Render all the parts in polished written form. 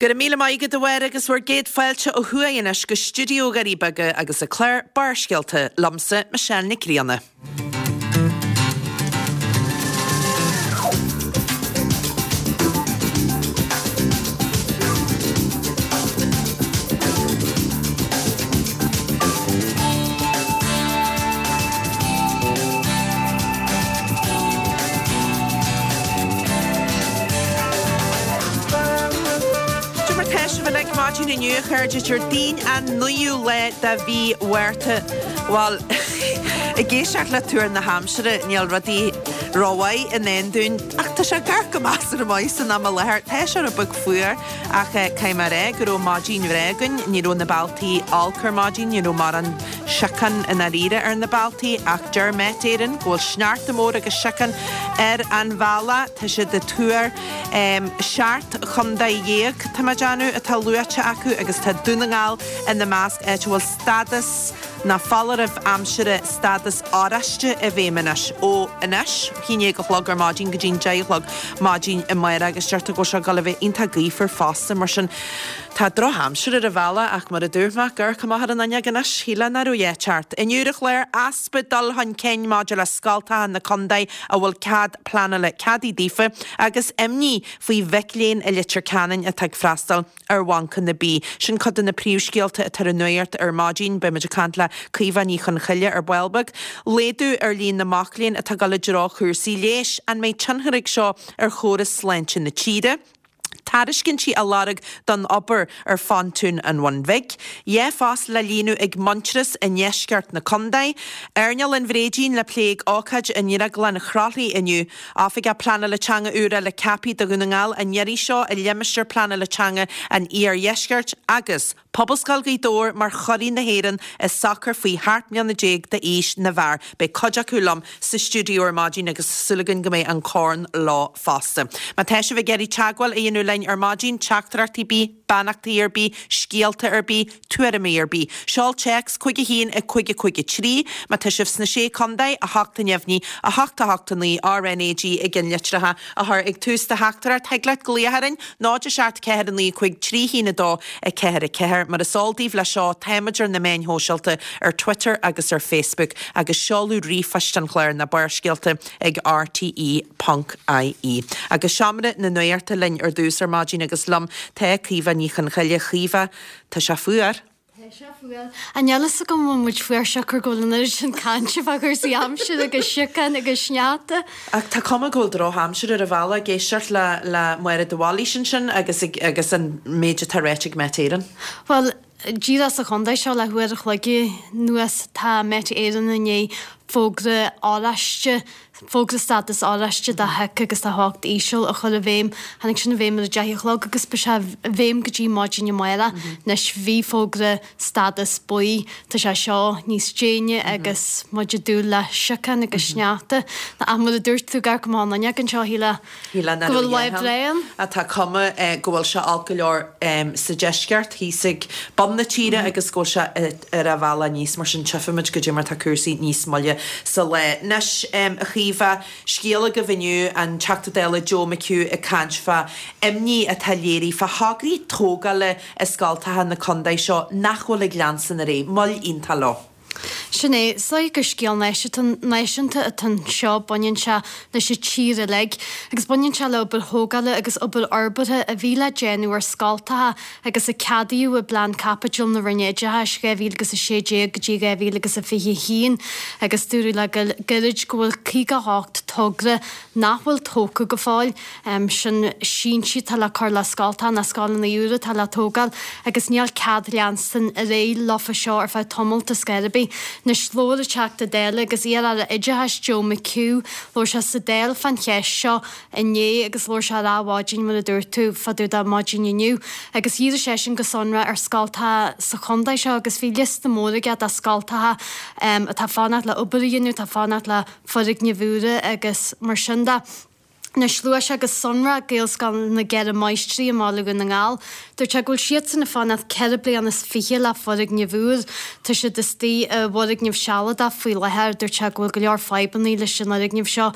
Go raibh míle maith agat a Mháire agus bhur gcéad fáilte ó thuaidh anois go stiúideo Dhoirí Beaga agus an clár Barrscéalta liomsa, Michelle Nic Grianna. Cad é mar tá sibh uilig maidin inniu, a chairde, Déardaoin an 9ú lá de mhí Mhárta. Bhuel, ag éisteacht le tuar na haimsire, níl rudaí rómhaith i ndán dúinn, ach tá sé ag amharc go measartha maith san am i láthair. Tá sé rud beag fuar, ach caithfidh mé a rá go raibh maidin bhreá againn. Ní raibh na bealtaí olc ar maidin, ní raibh mórán siocán i ndáiríre ar na bealtaí, ach deir Met Éireann go bhfuil sneachta mór agus siocán ar an bhealach. Tá siad ag tuar 17 chontae, tá mé ag déanamh, atá luaite acu agus tá Dún na nGall ina measc, áit a bhfuil stádas nó foláireamh aimsire stádas oráiste i bhfeidhm anois ó anois, 11 a chlog ar maidin go dtí'n 10 a chlog maidin amárach agus deirtear go bhfuil sé ag dul a bheith iontach gaofar fosta mar sin Tá drochaimsir ar an bhealach ach mar a dúirt mé, ag amharc amach ar an fhuinneog anois, shílfeá nach raibh a dhath ceart. Inniu ar an chlár, easpa dul chun cinn maidir le scoltacha na contae a bhfuil cead pleanála ceadaithe daofa agus imní faoi mhic léinn i Leitir Ceanainn atá ag freastal ar bhancanna bídh. Sin cuid de na príomhscéalta atá ar an nuacht ar maidin. Beidh muid ag caint le Caoimhe Ní Chonchoille ar ball beag. Laghdú ar líon na mac léinn atá ag dul i dtreo chúrsaí leighis. An mbeidh tionchar ag seo ar chóras sláinte na tíre? Tairiscintí á lorg don obair ar phontún an Bhun Bhig. Dhá phost le líonadh ag Muintearas i ndeisceart na contae. Airneál an Bhréidín le plé ag ócáid i nDrioglann Chroithlí inniu. Oifigeach Pleanála Teanga úr eile ceaptha do Dhún na nGall an iarraidh seo i limistéar pleanála teanga an Iardheiscirt agus. Pobalscoil Ghaoth Dobhair mar churaidh na hÉireann i sacar faoi sheacht mbliana déag d'aois na bhfear. Beidh cuid acu liom sa stiúideo ar maidin agus tá súil againn go mbeidh an corn leo fosta. Má tá sibh ag iarraidh teagmháil a dhéanamh linn ar maidin, teachtaireachtaí ar bith, beannachtaí ar bith, scéalta ar bith, tuairimí ar bith, seol téacs 5 1 5 5 3. Má tá sibh sna Sé Contae, 8 neamhní, 8 8 9 RNAG i gceannlitreacha a chur ag tús do theachtaireacht. Thig leat glaoch orainn, 0 7 4 9 5 3 1 2 4 4. Mar is eol daoibh leis seo, táimid ar na meáin shóisialta, ar Twitter agus ar Facebook, agus seoladh ríomhphoist an chláir ná Barrscéalta ag rte ponc ie. Agus Seomra na Nuachta linn ar dtús ar maidin agus liom tá Caoimhe Ní Chonchoille. A Chaoimhe, tá sé fuar. Tá sé fuar. Ach níl fhios agam an bhfuil muid fuar siocair go bhfuil an oiread sin cainte fá chúrsaí aimsire agus siocán agus sneachta. Ach tá cuma go bhfuil drochaimsir ar an bhealach ag éisteacht le le Máire de Bhailís ansin agus ag agus an méid atá ráite ag Met Éireann. Bhuel, díreach sa chontae seo le huair a chloig anuas tá Met Éireann i ndiaidh fógra oráiste Fógra stádas oráiste do shioc agus do theocht íseal a chur i bhfeidhm. Tháinig sin i bhfeidhm ar a deich a chlog agus beidh sé i bhfeidhm go dtí maidin amárach. Anois bhí fógra stádas buí, tá sé seo níos déine agus muid ag dúil le siocán agus sneachta. Ach mar a dúirt tú, ag amharc amach an fhuinneog anseo, shílfeá go bhfuil lá breá ann. Tá cuma go bhfuil sé olc go leor sa deisceart, thíos ag bun na tíre agus go bhfuil sé ar a bhealach aníos, mar sin tchífimid goidé mar tá cúrsaí níos moille sa lá. Anois, a Chaoimhe, scéal agaibh inniu, an Teachta Dála Joe McHugh ag caint fá imní atá léirithe fá thograí tógála i scoltacha na contae seo nach bhfuil ag leanstan ar aghaidh. Moill iontach leo. Sin é. Is dóigh gur scéal náisiúnta atá anseo, baineann sé leis an tír uilig agus baineann sé le obair thógála agus obair fhorbartha a bhí le déanamh ar scoltacha agus a ceadaíodh i bPlean Caipitil na Roinne Oideachais 2016 go dtí 2021 agus dúradh le gairid go bhfuil 58 togra nach bhfuil tógtha go fóill, sin síntí atá le cur le scoltacha nó scoileanna úra atá le tógáil agus níl cead leanstan ar aghaidh leofa seo ar feadh tamalt ar scor ar bith. Anois labhair an Teachta Dála agus iar-Aire Oideachais Joe McHugh, labhair sé sa Dáil fán cheist seo inné agus labhair sé ar Adhmhaidin mar a dúirt tú, fá dtaobh de maidin inniu. Agus dhírigh seisean go sonrath ar scoltacha sa chontae seo agus bhí liosta mór aige de scoltacha atá ag fanacht le obair a dhéanamh, atá ag fanacht le foirgnimh úra agus mar sin de. Anois, luaigh sé go sonrach Gaelscoil na gCeithre Máistrí i mBaile Dhún na nGall. Dúirt sé go bhfuil siadsan ag fanacht 4 bliana is 20 le foirgneamh úr. Tá siad istigh i bhfoirgneamh sealadach faoi láthair. Dúirt sé go bhfuil go leor fadhbanna leis an fhoirgneamh seo.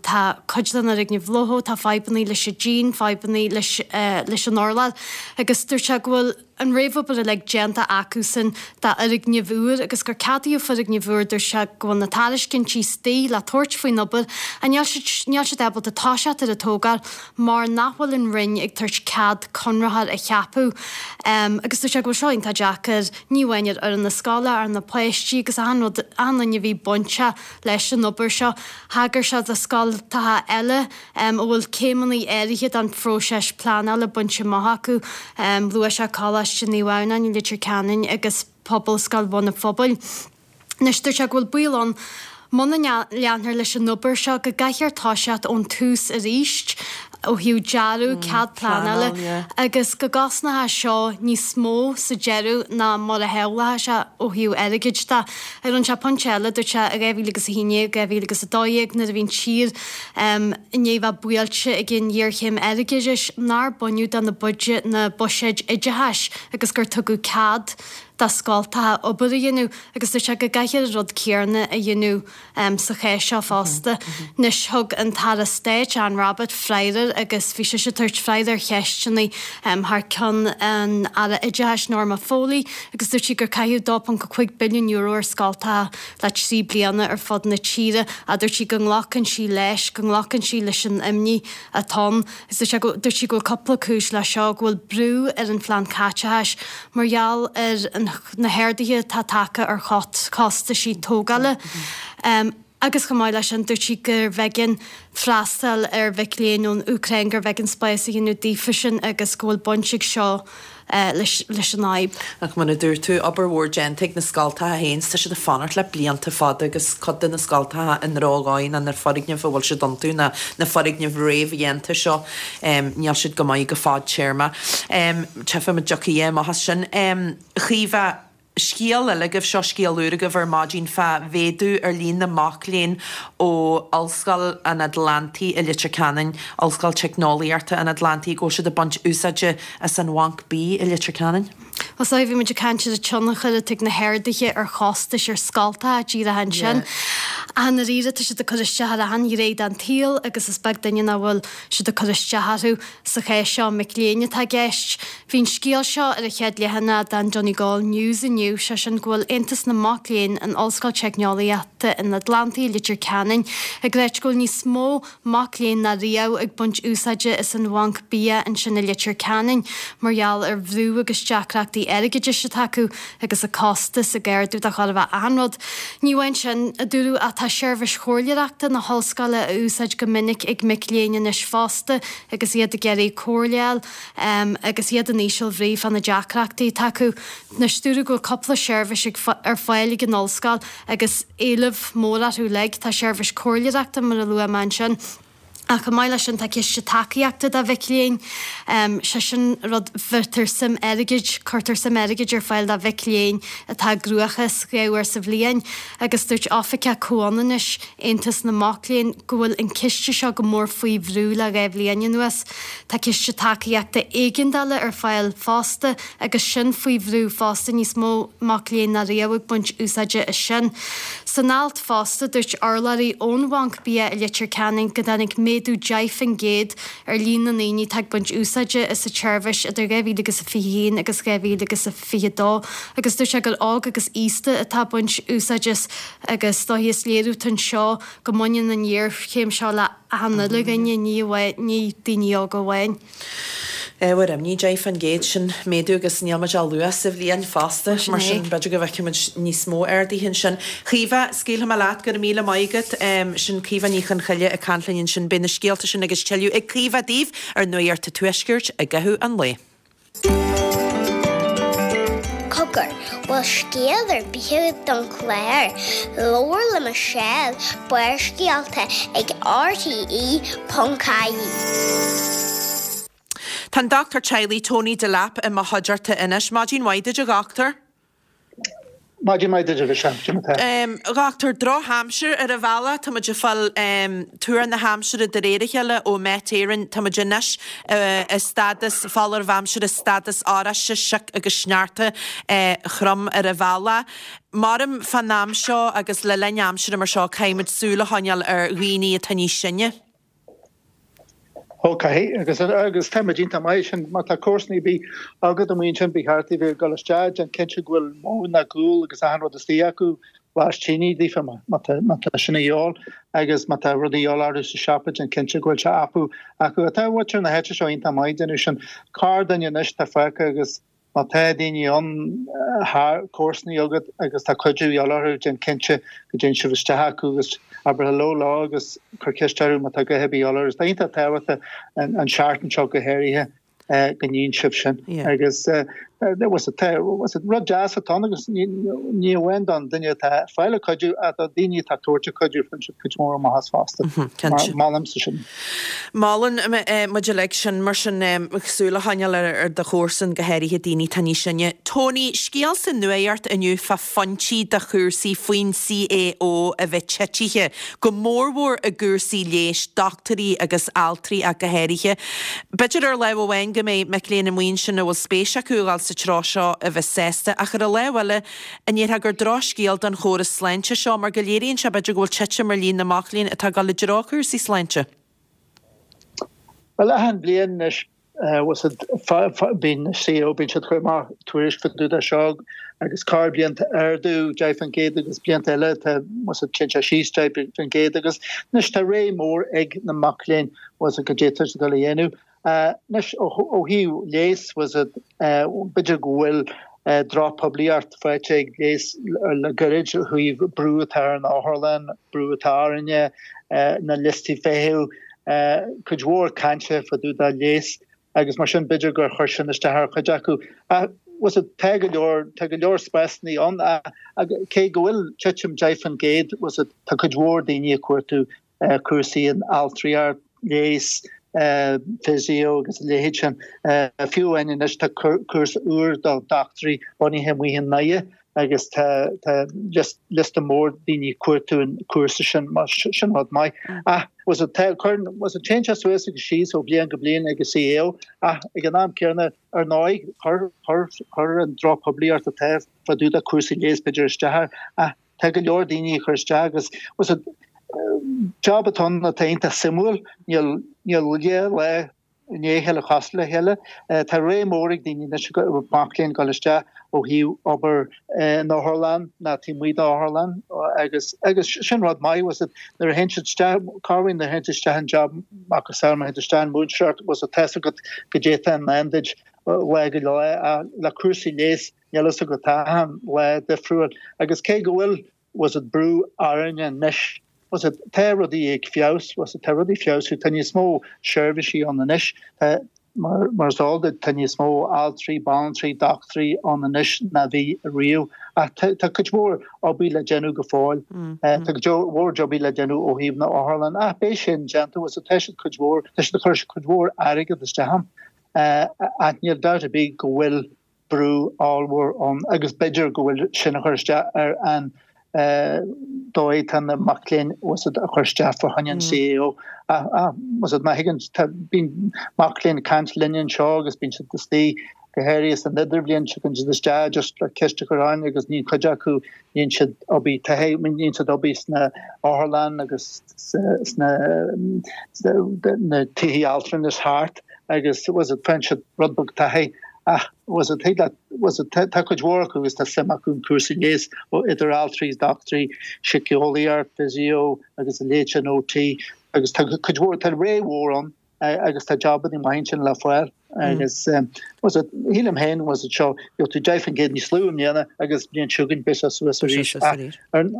Tá cuid den fhoirgneamh lochthach, tá fadhbanna leis an díon, fadhbanna leis an urlár agus dúirt sé go bhfuil, an réamhobair uilig déanta acusan d'fhoirgneamh úr agus gur ceadaíodh foirgneamh úr, dúirt sé go bhfuil na tairiscintí istigh le tabhairt faoin obair ach níl siad níl siad ábalta toiseacht ar an tógáil mar nach bhfuil an Roinn ag tabhairt cead conraitheoir a cheapadh. Agus dúirt sé go bhfuil seo iontach deacair, ní amháin ar fhoireann na scoile, ar na páistí agus achan rud, achan duine a bhí bainteach leis an obair seo. Thagair sé do scoltacha eile a bhfuil céimeanna áirithe den phróiseas pleanála bainte amach acu. Luaigh sé Coláiste Naomh Adhamhnáin i Leitir Ceanainn agus Pobalscoil Bhun an Phobail. Anois, dúirt sé go bhfuil baol ann, muna leanfar leis an obair seo, go gcaithfear toiseacht ón tús arís ó thaobh dearadh, cead pleanála agus go gcosnóidh seo níos mó sa deireadh ná mar a shamhlódh sé ó thaobh airgid de. Rinne sé pointe eile, dúirt sé, i 2011, 2012 nuair a bhí an tír i ndiaidh bheith buailte ag an ghéarchéim airgeadais, nár baineadh de na na buiséid oideachais agus gur tugadh cead do scoltacha obair a dhéanamh agus dúirt sé go gcaithfear an rud céanna a dhéanamh sa chás seo fosta. Anois thug an tAire Stáit, Anne Rabbitte, freagra agus bhí sise ag tabhairt freagra ar cheisteanna thar ceann an Aire Oideachais, Norma Foley, agus dúirt sí gur caitheadh €2.5 billiún ar scoltacha le 3 bliana ar fud na tíre ach dúirt sí go nglacann sí leis, go nglacann sí leis an imní atá ann. Agus dúirt sé go, dúirt sí go bhfuil cúpla cúis leis seo, go bhfuil brú ar an phlean caiteachais mar gheall ar an, na harduithe atá tagtha ar chostaisí tógála. Agus chomh maith leis sin, dúirt sí gurbh éigean freastal ar mhic léinn ón Úcráin, gurbh éigean spás a dhéanamh daofasan agus go bhfuil baint ag seo leis an fhadhb. Ach mar a dúirt tú, obair mhór déanta ag na scoltacha féin, tá siad ag fanacht le blianta fada agus cuid de na scoltacha i ndrochdhóigh ná na foirgnimh a bhfuil siad iontu, ná na foirgnimh réamhdhéanta seo, níl siad go maith go fadtéarma. Tchífimid an dtiocfaidh amach as sin. A Chaoimhe, scéal eile agaibh, seo scéal úr agaibh ar maidin fá mhéadú ar líon na mac léinn ó Ollscoil an Atlantaigh i Leitir Ceanainn, Ollscoil Teicneolaíochta an Atlantaigh, go bhfuil siad ag baint úsáide as an Bhanc Bídh i Leitir Ceanainn. Bhuel, so bhí muid ag caint ar an tionchar atá ag na harduithe ar chostais ar scoltacha díreach ansin. Ach i ndáiríre tá siad ag cur isteach ar achan ghné den tsaol agus is beag duine nach bhfuil siad ag cur isteach orthu. Sa chás seo, mic léinn atá i gceist. Bhí an scéal seo ar an chéad leathanach den Donegal News inniu, sé sin go bhfuil Aontas na Mac Léinn in Ollscoil Teicneolaíochta an Atlantaigh i Leitir Ceanainn ag ráit go bhfuil níos mó mac léinn ná riamh ag baint úsáide as an bhanc bia ansin i Leitir Ceanainn mar gheall ar bhrú agus deacrachtaí airgeadais atá acu agus an costas ag ardú do chóir a bheith achan rud. Ní amháin sin, a dúradh, ach tá seirbhís chomhairleoireachta na hollscoile á úsáid go minic ag mic léinn anois fosta agus iad ag iarraidh comhairle a fháil agus iad in íseal bhrí fá na deacrachtaí atá acu. Anois, dúradh go bhfuil cúpla seirbhís ar fáil ag an ollscoil agus éileamh mór orthu uilig. Tá seirbhís comhairleoireachta, mar a luaigh mé ansin, ach chomh maith leis sin tá ciste tacaíochta do mhic léinn. Sé sin rud, bheirtear suim airgid, cuirtear suim airgid ar fáil do mhic léinn atá i gcruachás 2 uair sa bhliain agus dúirt Oifigeach Comhionannais Aontas na Mac Léinn go bhfuil an ciste seo go mór faoi bhrú le 2 bhliain anuas. Tá ciste tacaíochta éigeandála ar fáil fosta agus sin faoi bhrú fosta, níos mó mac léinn ná riamh ag baint úsáide as sin. San alt fosta, dúirt urlabhraí ón Bhanc Bia i Leitir Ceanainn go dtáinig méadú 10% ar líon na ndaoine atá ag baint úsáide as an tseirbhís idir 2021 agus 2022 agus dúirt sé gur óg agus aosta atá ag baint úsáid as agus is dóichí is léiriú atá anseo go mbaineann an ghéarchéim seo le achan uile dhuine, ní amháin, ní daoine óga amháin. Ábhar imní, 10% sin méadú agus níl muid ach luath sa bhliain fosta, mar sin b'fhéidir go bhfeicfidh muid níos mó arduithe ansin. Caoimhe, scaoilfidh mé leat, go raibh míle maith agat. Sin Caoimhe Ní Chonchoille ag caint linn ansin. Beidh na scéalta sin agus tuilleadh ag Caoimhe daoibh ar Nuacht an Tuaiscirt i gcaitheamh an lae. Cogar, bhfuil scéal ar bith agat don chlár? Labhair le Michelle, Barrscéalta ag RTÉ.ie. Tá an dochtúir teaghlaigh Tony Delap i mo chuideachta anois. Maidin mhaith duit a dhochtúir. Maidin mhaith duit a Mhichelle, cad é mar tá? A dhochtúir, drochaimsir ar an bhealach, tá muid ag fáil tuar na haimsire de réir a chéile ó Met Éireann, tá muid anois i stádas foláireamh aimsire stádas oráiste, sioc agus sneachta throm ar an bhealach. Maram fán am seo agus le linn aimsire mar seo caithfidh muid súil a choinneáil ar dhaoine atá níos sine. Ó caithfidh, agus agus tá muid iontach maith sin, má tá comharsana ar bith agat amuigh ansin ba cheart daoibh a bheith ag dul isteach, déan cinnte go bhfuil móin ná gual agus achan rud istigh acu, glas tine daofa má tá má tá sin a dhíobháil agus má tá rudaí a dhíobháil orthu sa siopa déan cinnte go bhfuil sé acu acu. Tá muintir na háite seo iontach maith ag déanamh sin. Corrdhuine anois tá fágtha agus Má tá daoine ann thar comharsanaí agat agus tá cuidiú a dhíobháil orthu, déan cinnte go dtéann sibh isteach acu agus abair hello leo agus cuir ceist orthu má tá a dhath ar bith a dhíobháil orthu. Tá iontach tábhachtach an seachtain seo go háirithe go ndéanann sibh sin. Agus rud deas atá ann agus ní amháin don duine atá ag fáil an cuidiú ach do daoine atá ag tabhairt an cuidiú faigheann siad cuid mhór maitheas fosta. Molaimse sin. Molann muid uilig sin, mar sin, súil a choinneáil ar do chomharsan, go háirithe daoine atá níos sine. Tony, scéal sa nuacht inniu fá phointí do chúrsaí faoin CAO a bheith titithe, go mórmhór i gcúrsaí leighis, dochtúirí agus altraí ach go háirithe. B'fhéidir ar lámh amháin go mbeidh mic léinn amuigh ansin a bhfuil spéis acu a dhul sa treo seo a bheith sásta, ach ar an lámh eile, an ndéarfá gur drochscéal don chóras sláinte seo mar go léiríonn sé b'fhéidir go bhfuil titim ar líon na mac léinn atá ag dul i dtreo cúrsaí sláinte? Bhuel, achan bhliain anois, bíonn CAO, bíonn siad ag cur amach tuairisc fá dtaobh de seo agus corrbhliain tá ardú 10% agus blianta eile tá téann sé síos 10% agus anois tá rogha mór ag na mac léinn go d'fhéadfadh siad dul a dhéanamh. Anois ó thaobh leigheas b'fhéidir go bhfuil drochphoiblíocht faighte ag leigheas le gairid ó thaobh brú atá ar an otharlann, brú atá orainne, na liostaí feithimh, cuid mhór cainte fá dtaobh de leigheas agus mar sin b'fhéidir gur chuir sin isteach ar chuid acu. Ach tá go leor, tá go leor spásanna ann ach cé go bhfuil titim 10% tá cuid mhór daoine ag cuartú cúrsaí in altraíocht, leigheas, physio agus a leithéid sin. Fiú amháin anois tá cúrsa úr do dhochtúirí bunaithe amuigh i nDoire agus tá liosta mór daoine ag cuartú an cúrsa sin, mar sin rud maith. Ach téann sé suas agus síos ó bhliain go bliain ag an CAO ach ag an am céanna ar ndóigh chuir an drochphoiblíocht atá fá dtaobh de cúrsaí leighis b'fhéidir isteach air ach Tá go leor daoine ag cur isteach agus job atá ann atá iontach suimiúil, níl níl lá i ndiaidh a chéile cosúil le chéile. Tá rogha mór ag daoine anois, mac léinn dul isteach ó thaobh obair in otharlann ná taobh amuigh d'otharlann agus agus sin rud maith was it nuair a théann siad isteach, corruair nuair a théann siad isteach in job macasamhail má théann tú isteach in múinteoireacht was it tá's agat goidé atá i ndán duit lá go lá le cúrsaí leighis Níl fhios agat tá achan lá difriúil agus cé go bhfuil was it brú orainne anois was it tá rudaí ag feabhas was it tá rudaí ag feabhsú tá níos mó seirbhísí ann anois tá mar mar is eol duit tá níos mó altraí banaltraí dochtúirí ann anois ná bhí riamh ach tá tá cuid mhór obair le déanamh go fóill tá cuid mhór jobaí le déanamh ó thaobh na otharlann ach beidh sin déanta was it tá siad cuid mhór tá siad ag cur cuid mhór airgead isteach ann ach níl dabht ar bith go bhfuil brú ollmhór ann agus b'fhéidir go bhfuil sin a chur isteach ar an dóigh tá na mac léinn was it a chur isteach fá choinne an CAO. Was it má thuigeann tá bíonn mac léinn ag caint linne anseo agus bíonn siad istigh go háirithe san idirbhliain tagann siad isteach just le ceist a chur orainn agus níonn cuid acu níonn siad obair taithí níonn siad obair sna otharlann agus sna na tithe altranais thart agus was it faigheann siad rud beag taithí ach was it thig leat was it tá cuid mhór acu agus tá suim acu in cúrsaí leighis ó idir altraí is dochtúirí, síceolaíocht, physio agus a leithéid sin OT agus tá cuid mhór tá rogha mhór ann agus tá jobanna maith ansin le fáil agus was it shílim féin was it seo gheobhaidh tú 10% níos lú i mbliana agus bliain seo chugainn beidh sé suas arís ach ar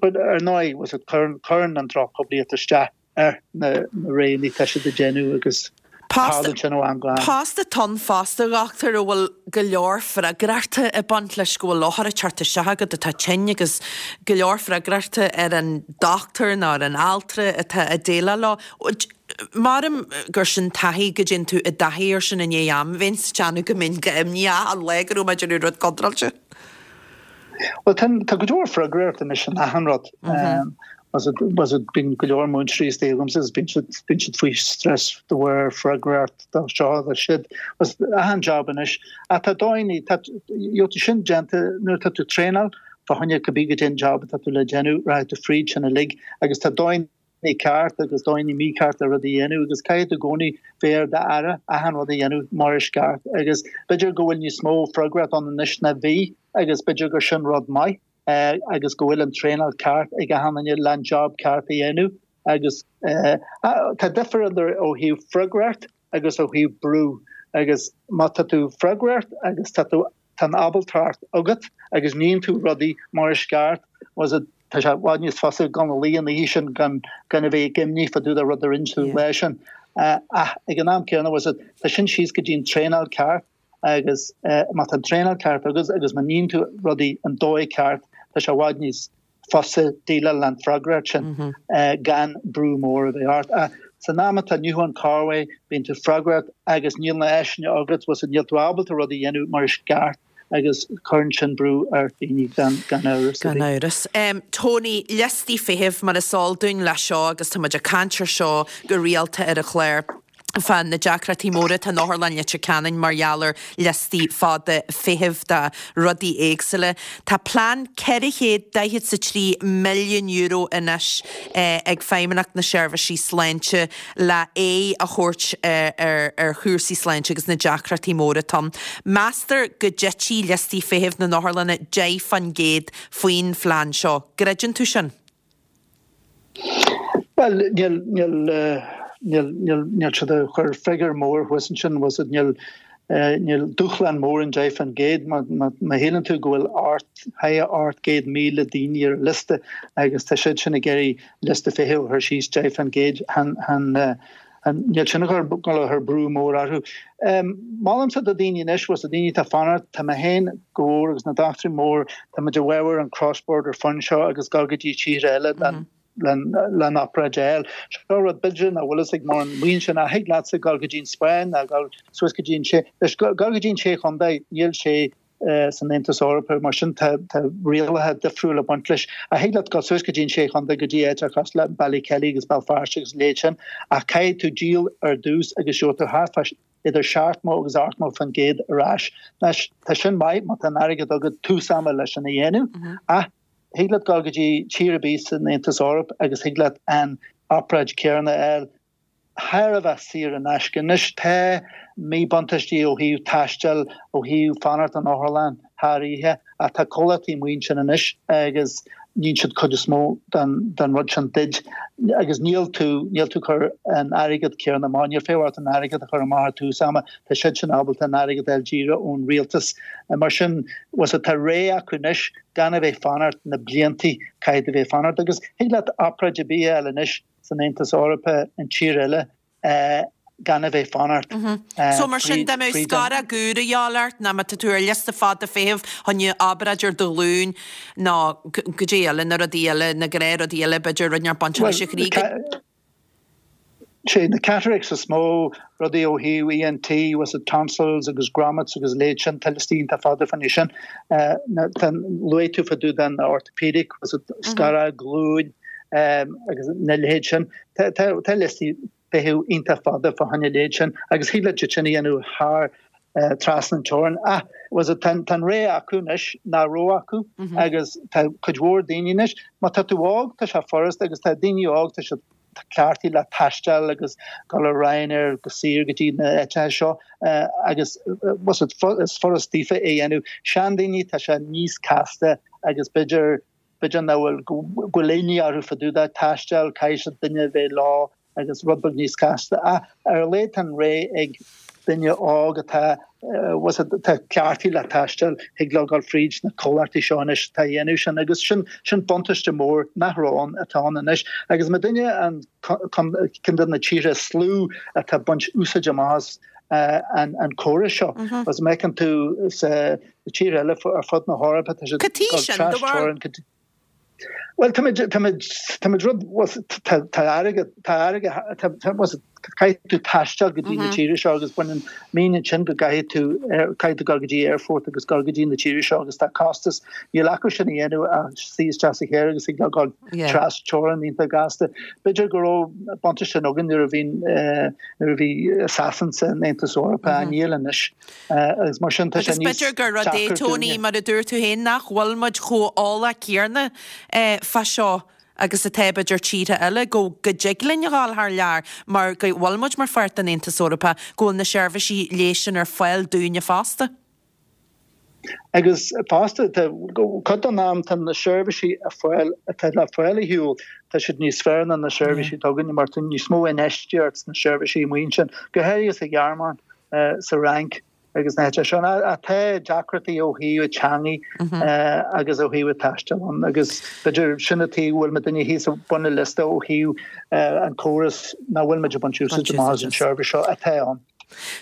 but ar ndóigh was it cuireann cuireann an drochphoiblíocht isteach ar na roghanna atá siad ag déanamh agus tarlaíonn sin ó am go ham. Post atá ann fosta, a dhochtúir, a bhfuil go leor freagrachta ag baint leis, go bhfuil othar ag teacht isteach agat atá tinn agus go leor freagrachta ar an dochtúir nó ar an altra atá ag déileáil leo. Maram gur sin taithí go dtéann tú i dtaithí ar sin i ndiaidh am. Bheinn sa teannadh go mbeinn go imníoch achan lá go raibh mé ag déanamh rud contráilte. Bhuel, tá, tá go leor freagracht anois in achan rud. Was it, bíonn go leor múinteoirí istigh agamsa agus bíonn siad, bíonn siad faoi stress de bharr freagracht do seo do siúd. Was achan job anois. Ach tá dóigheanna, tá, you know, sin déanta nuair atá tú traenáil fá choinne cibé goidé an job atá tú le déanamh, rachaidh tú fríd sin uilig agus tá dóigheanna ceart agus dóigheanna mícheart le rud a dhéanamh agus caithfidh tú i gcónaí bheith ar d'aire achan rud a dhéanamh mar is ceart agus b'fhéidir go bhfuil níos mó freagracht ann anois ná bhí agus b'fhéidir gur sin rud maith agus go bhfuil an traenáil ceart ag achan duine le an job ceart a dhéanamh agus tá difear idir ó thaobh freagracht agus ó thaobh brú agus má tá tú freagracht agus tá tú tá an ábaltacht agat agus níonn tú rudaí mar is ceart, was it, tá sé i bhfad níos fusa dul a luí an oíche sin gan gan a bheith ag imní fá dtaobh de rud a rinne tú an lá sin. Ach ag an am céanna, was it, tá sin síos go dtí an traenáil ceart agus má tá an traenáil ceart agat agus má níonn tú rudaí an dóigh ceart, tá sé i bhfad níos fusa déileáil leis an bhfreagracht sin gan brú mór a bheith ort. Ach san am atá inniu ann corruair, bíonn tú freagrach agus níl na áiseanna agat, bhfuil níl tú ábalta rud a dhéanamh mar is ceart agus cuireann sin brú ar dhaoine gan amhras ar bith. Gan amhras. Tony, liostaí feithimh mar is eol dúinn leis seo agus tá muid ag caint ar seo go rialta ar an chlár. fá na deacrachtaí móra atá in Otharlann Leitir Ceanainn mar gheall ar liostaí fada feithimh do rudaí éagsúla. Tá plean €443 milliún anois ag Feidhmeannacht na Seirbhísí Sláinte le aghaidh a thabhairt ar chúrsaí sláinte agus na deacrachtaí móra atá ann. Meastar go dtitfidh liostaí feithimh na n-otharlanna 10% faoin phlean seo. Gcreideann tú sin? Bhuel, níl, níl, níl, níl, níl siad ag cur figiúr mór thuas ansin, bhfuil siad, níl, níl dúshlán mór an 10%, má, má, má shíleann tú go bhfuil ocht, thar 800,000 daoine ar an liosta agus tá siad sin ag iarraidh liosta feithimh a chur síos 10%, chan, chan, Níl sin ag dul a chur brú mór orthu. Molaimse do daoine anois, bhfuil 's a'd daoine atá ag fanacht, tá mé féin go mhór agus na dochtúirí mór, tá muid i bhfabhar an cross border fund seo agus dul go dtí tíortha eile le an obráid a fháil. Seo rud b'fhéidir nach bhfuil fhios ag mórán maíonn sé nach thig leatsa dul go dtí an Spáinn ná dul suas go dtí an sé, leis dul go dtí an Sé Chontae, níl sé san Aontas Eorpach, mar sin tá rialacha difriúla ag baint leis. Ach thig leat dul suas go dtí an Sé Chontae, go dtí áiteacha cosúil le Ballykelly agus Béal Feirste agus a leithéid sin, ach caithfidh tú díol ar dtús agus gheobhaidh tú thart fá idir 70 agus 80% ar ais. Anois, tá sin maith má tá an airgead agat tús ama leis sin a dhéanamh, ach thig leat dul go dtí tír ar bith san Aontas Eorpach agus thig leat an obráid céanna a fháil. thar a bheith saor in aisce. Anois tá míbhuntáistí ó thaobh taistil, ó thaobh fanacht in otharlann thar oíche, ach tá comhlachtaí amuigh ansin anois agus níonn siad cuid is mó den rud sin duit agus níl tú, níl tú ag cur an airgead céanna amach, níl feidhm ort an airgead a chur amach ar tús ama, tá siad sin ábalta an airgead a fháil díreach ón rialtas. Mar sin, bhfuil 's a'd, tá ré acu anois gan a bheith fanacht na bliantaí caithfidh tú bheith fanacht agus thig leat obráid ar bith a fháil anois san Aontas Eorpach in tír eile gan a bheith fanacht So mar sin dá mbeadh scaróg úr a dhíobháil ort nó má tá tú ar liosta fada feithimh choinne obráid ar do ghlúin nó goidé eile, na rudaí eile, na gnáthrudaí eile b'fhéidir rud inteacht bainteach leis an chroí go. Sé na cataracts is mó, rudaí ó thaobh ENT, bhfuil 's a'd tonsils agus grommets agus a leithéid sin, tá liostaí iontach fada fá choinne sin. Tá, luaigh tú fá dtaobh den orthopedic, bhfuil 's a'd scaróg glúin, agus na leithéid sin. Tá liostaí feithimh iontach fada fá choinne a leithéid sin agus thig leat iad sin a dhéanamh thar trasna an teorainn. Ach bhfuil 's a'd tá an ré acu anois nach raibh acu agus tá cuid mhór daoine anois, má tá tú óg tá sé furasta agus tá daoine óg tá siad cleachtaithe le taisteal agus dul ar Ryanair go saor go dtí na áiteacha seo agus bhfuil 's a'd is furast daofa é a dhéanamh. Seandaoine tá sé níos casta agus b'fhéidir B'fhéidir nach bhfuil, go bhfuil imní orthu fá dtaobh de taisteal, caithfidh siad duine a bheith leo agus rud beag níos casta. Ach ar a laghad tá an ré ag duine óg atá, bhfuil 's a'd, atá cleachtaithe le taisteal, thig leo dul fríd na comhlachtaí seo anois atá a dhéanamh sin agus sin, sin buntáiste mór nach raibh ann, atá ann anois. Agus má duine an, ceann de na tíortha is lú atá ag baint úsáid amach as an, an córas seo. Agus má fheiceann tú sa, Na tíortha eile ar fud na hEorpa, tá siad ag dul tras-teorainn go dtí. Bhuel, táimid, táimid, táimid rud, bhuel, tá, tá airgead, tá airgead, tá, tá, bhuel, Caithfidh tú taisteal go dtí na tíre seo agus baineann mean ansin go gcaithfidh tú caithfidh tú dul go dtí aerfort agus dul go dtí na tíre seo agus tá costas níl acu sin a dhéanamh ach suí isteach sa charr agus ag dul tras teorainn iontach gasta. B'fhéidir go raibh buntáiste sin againn nuair a bhí nuair a bhí Sasain san Aontas Eorpach níl anois agus mar sin tá sé Agus níos b'fhéidir gur rud é deacra Tony dúinne. mar a dúirt tú féin nach bhfuil muid chomh eolach céanna fá seo agus atá b'fhéidir tíortha eile, go go dtig linn a dhul thar lear mar go bhfuil muid mar pháirt den Aontas Eorpach, go bhfuil na seirbhísí leighis sin ar fáil dúinne fosta. Agus fosta, tá cuid den am tá na seirbhísí ar fáil atá le fáil ar shiúl, tá siad níos fearr ná na seirbhísí atá againne mar tá níos mó infheistíocht sna seirbhísí amuigh ansin, go háirithe sa Ghearmáin, sa Fhrainc. agus na háite seo. Tá deacrachtaí ó thaobh teangaí agus ó thaobh taistil ann agus b'fhéidir sin an taobh a bhfuil muidinne thíos ag bun an liosta ó thaobh an córas nach bhfuil muid ag baint úsáid amach as an seirbhís seo atá ann.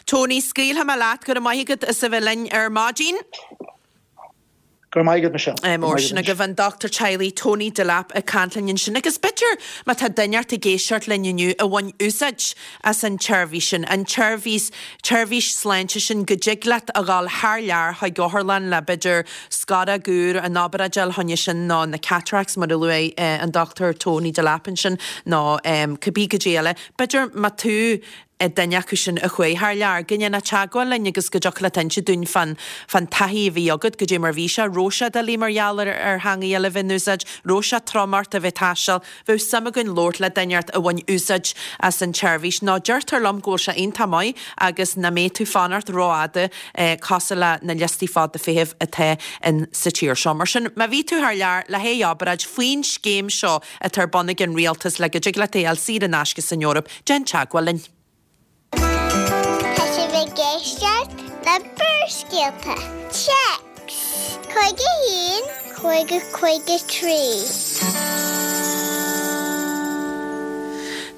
Tony, scaoilfidh mé leat, go raibh maith agat as a bheith linn ar maidin. Go raibh maith agat, Michelle. Go raibh maith agat. An dochtúir teaghlaigh Tony Delap ag caint linn ansin agus b'fhéidir má tá duine ort ag éisteacht linn inniu a bhain úsáid as an tseirbhís sin, an tseirbhís, tseirbhís sláinte sin go dtig leat a dhul thar lear chuig otharlann le b'fhéidir scoróg úr, an obráid a fháil choinne sin nó na cataracts mar a luaigh an Dochtúir Tony Delap ansin nó cibé goidé eile. B'fhéidir má tú duine acu sin a chuaigh thar lear, go ndéanfá teagmháil linn agus go dtiocfadh leat inse dúinn fán fán taithí a bhí agat, goidé mar bhí sé, raibh sé doiligh mar gheall ar ar theangaidh eile a bheith in úsáid, raibh sé trom ort a bheith ag taisteal, bheadh suim againn labhairt le duine ort a bhain úsáid as an tseirbhís. Nó deirtear liom go bhfuil sé iontach maith agus nach mbeidh tú fanacht rófhada cosúil le na liostaí fada feithimh atá in sa tír seo. Mar sin, má bhí tú thar lear le haghaidh obráid faoin scéim seo atá ar bun ag an rialtas le go dtig leat é a fháil saor in aisce san Eoraip, Déan teagmháil linn. Tá sibh ag éisteacht le Barrscéalta. Téacs 51 50 53.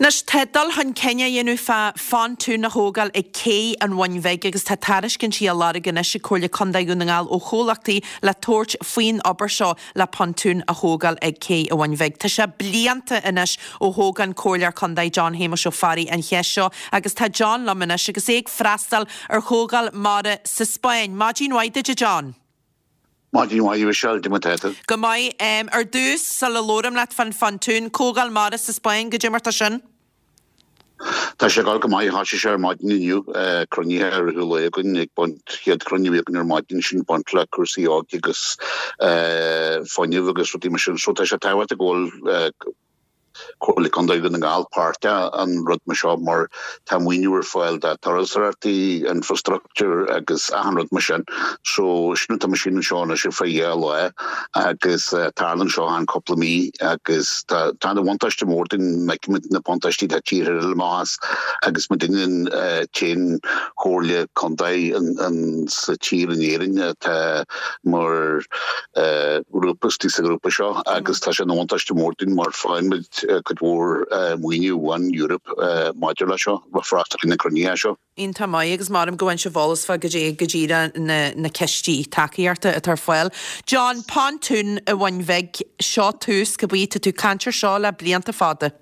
Anois, tá dul chun cinn á dhéanamh fá phontún a thógáil ag Cé an Bhoinn Bhig agus tá tairiscintí á lorg anois ag Comhairle Contae Dhún na nGall ó chomhlachtaí le tabhairt faoin obair seo le pontún a thógáil ag Cé an Bhoinn Bhig. Tá sé blianta anois ó thóg an Comhairleoir Contae John Shéamuis Ó Fearraigh an cheist seo agus tá John liom anois agus é ag freastal ar Chomhdháil Mara sa Spáinn. Maidin mhaith duit a John. Maidin mhaith a Mhichelle, goidé mar tá tú? Go maith. Ar dtús, sula labhraim leat fán phontún, Comhdháil Mara sa Spáinn, goidé mar tá sin? Tá sé ag dul go maith, thoisigh sé ar maidin inniu, cruinnithe i rith an lae againn ag baint, chéad chruinniú a bhí againn ar maidin sin ag baint le cúrsaí óige agus fuinneamh agus rudaí mar sin. So tá sé tábhachtach go bhfuil Comhairle Contae Dhún na nGall páirteach in rud mar seo mar tá maoiniú ar fáil do turasóireachtaí, infrastructure agus achan rud mar sin. So sin atá muid anseo anois ar feadh dhá lá agus tarlaíonn seo achan cúpla mí agus tá tá ana bhuntáiste mór dúinn feicimid na buntáistí atá tíortha eile amach as agus muidinne an t-aon chomhairle contae an sa tír in Éirinn atá mar ghrúpa istigh sa ghrúpa seo agus tá sé ina bhuntáiste mór dúinn mar faigheann muid cuid mhór maoiniú ón Eoraip maidir leis seo, freastal ar na cruinnithe seo. Iontach maith agus maram go bhfaigheann sibh eolas fá goidé go díreach na na cistí tacaíochta atá ar fáil. John, Pontún an Bhoinn Bhig, seo tús, cibé, tá tú ag caint air seo le blianta fada.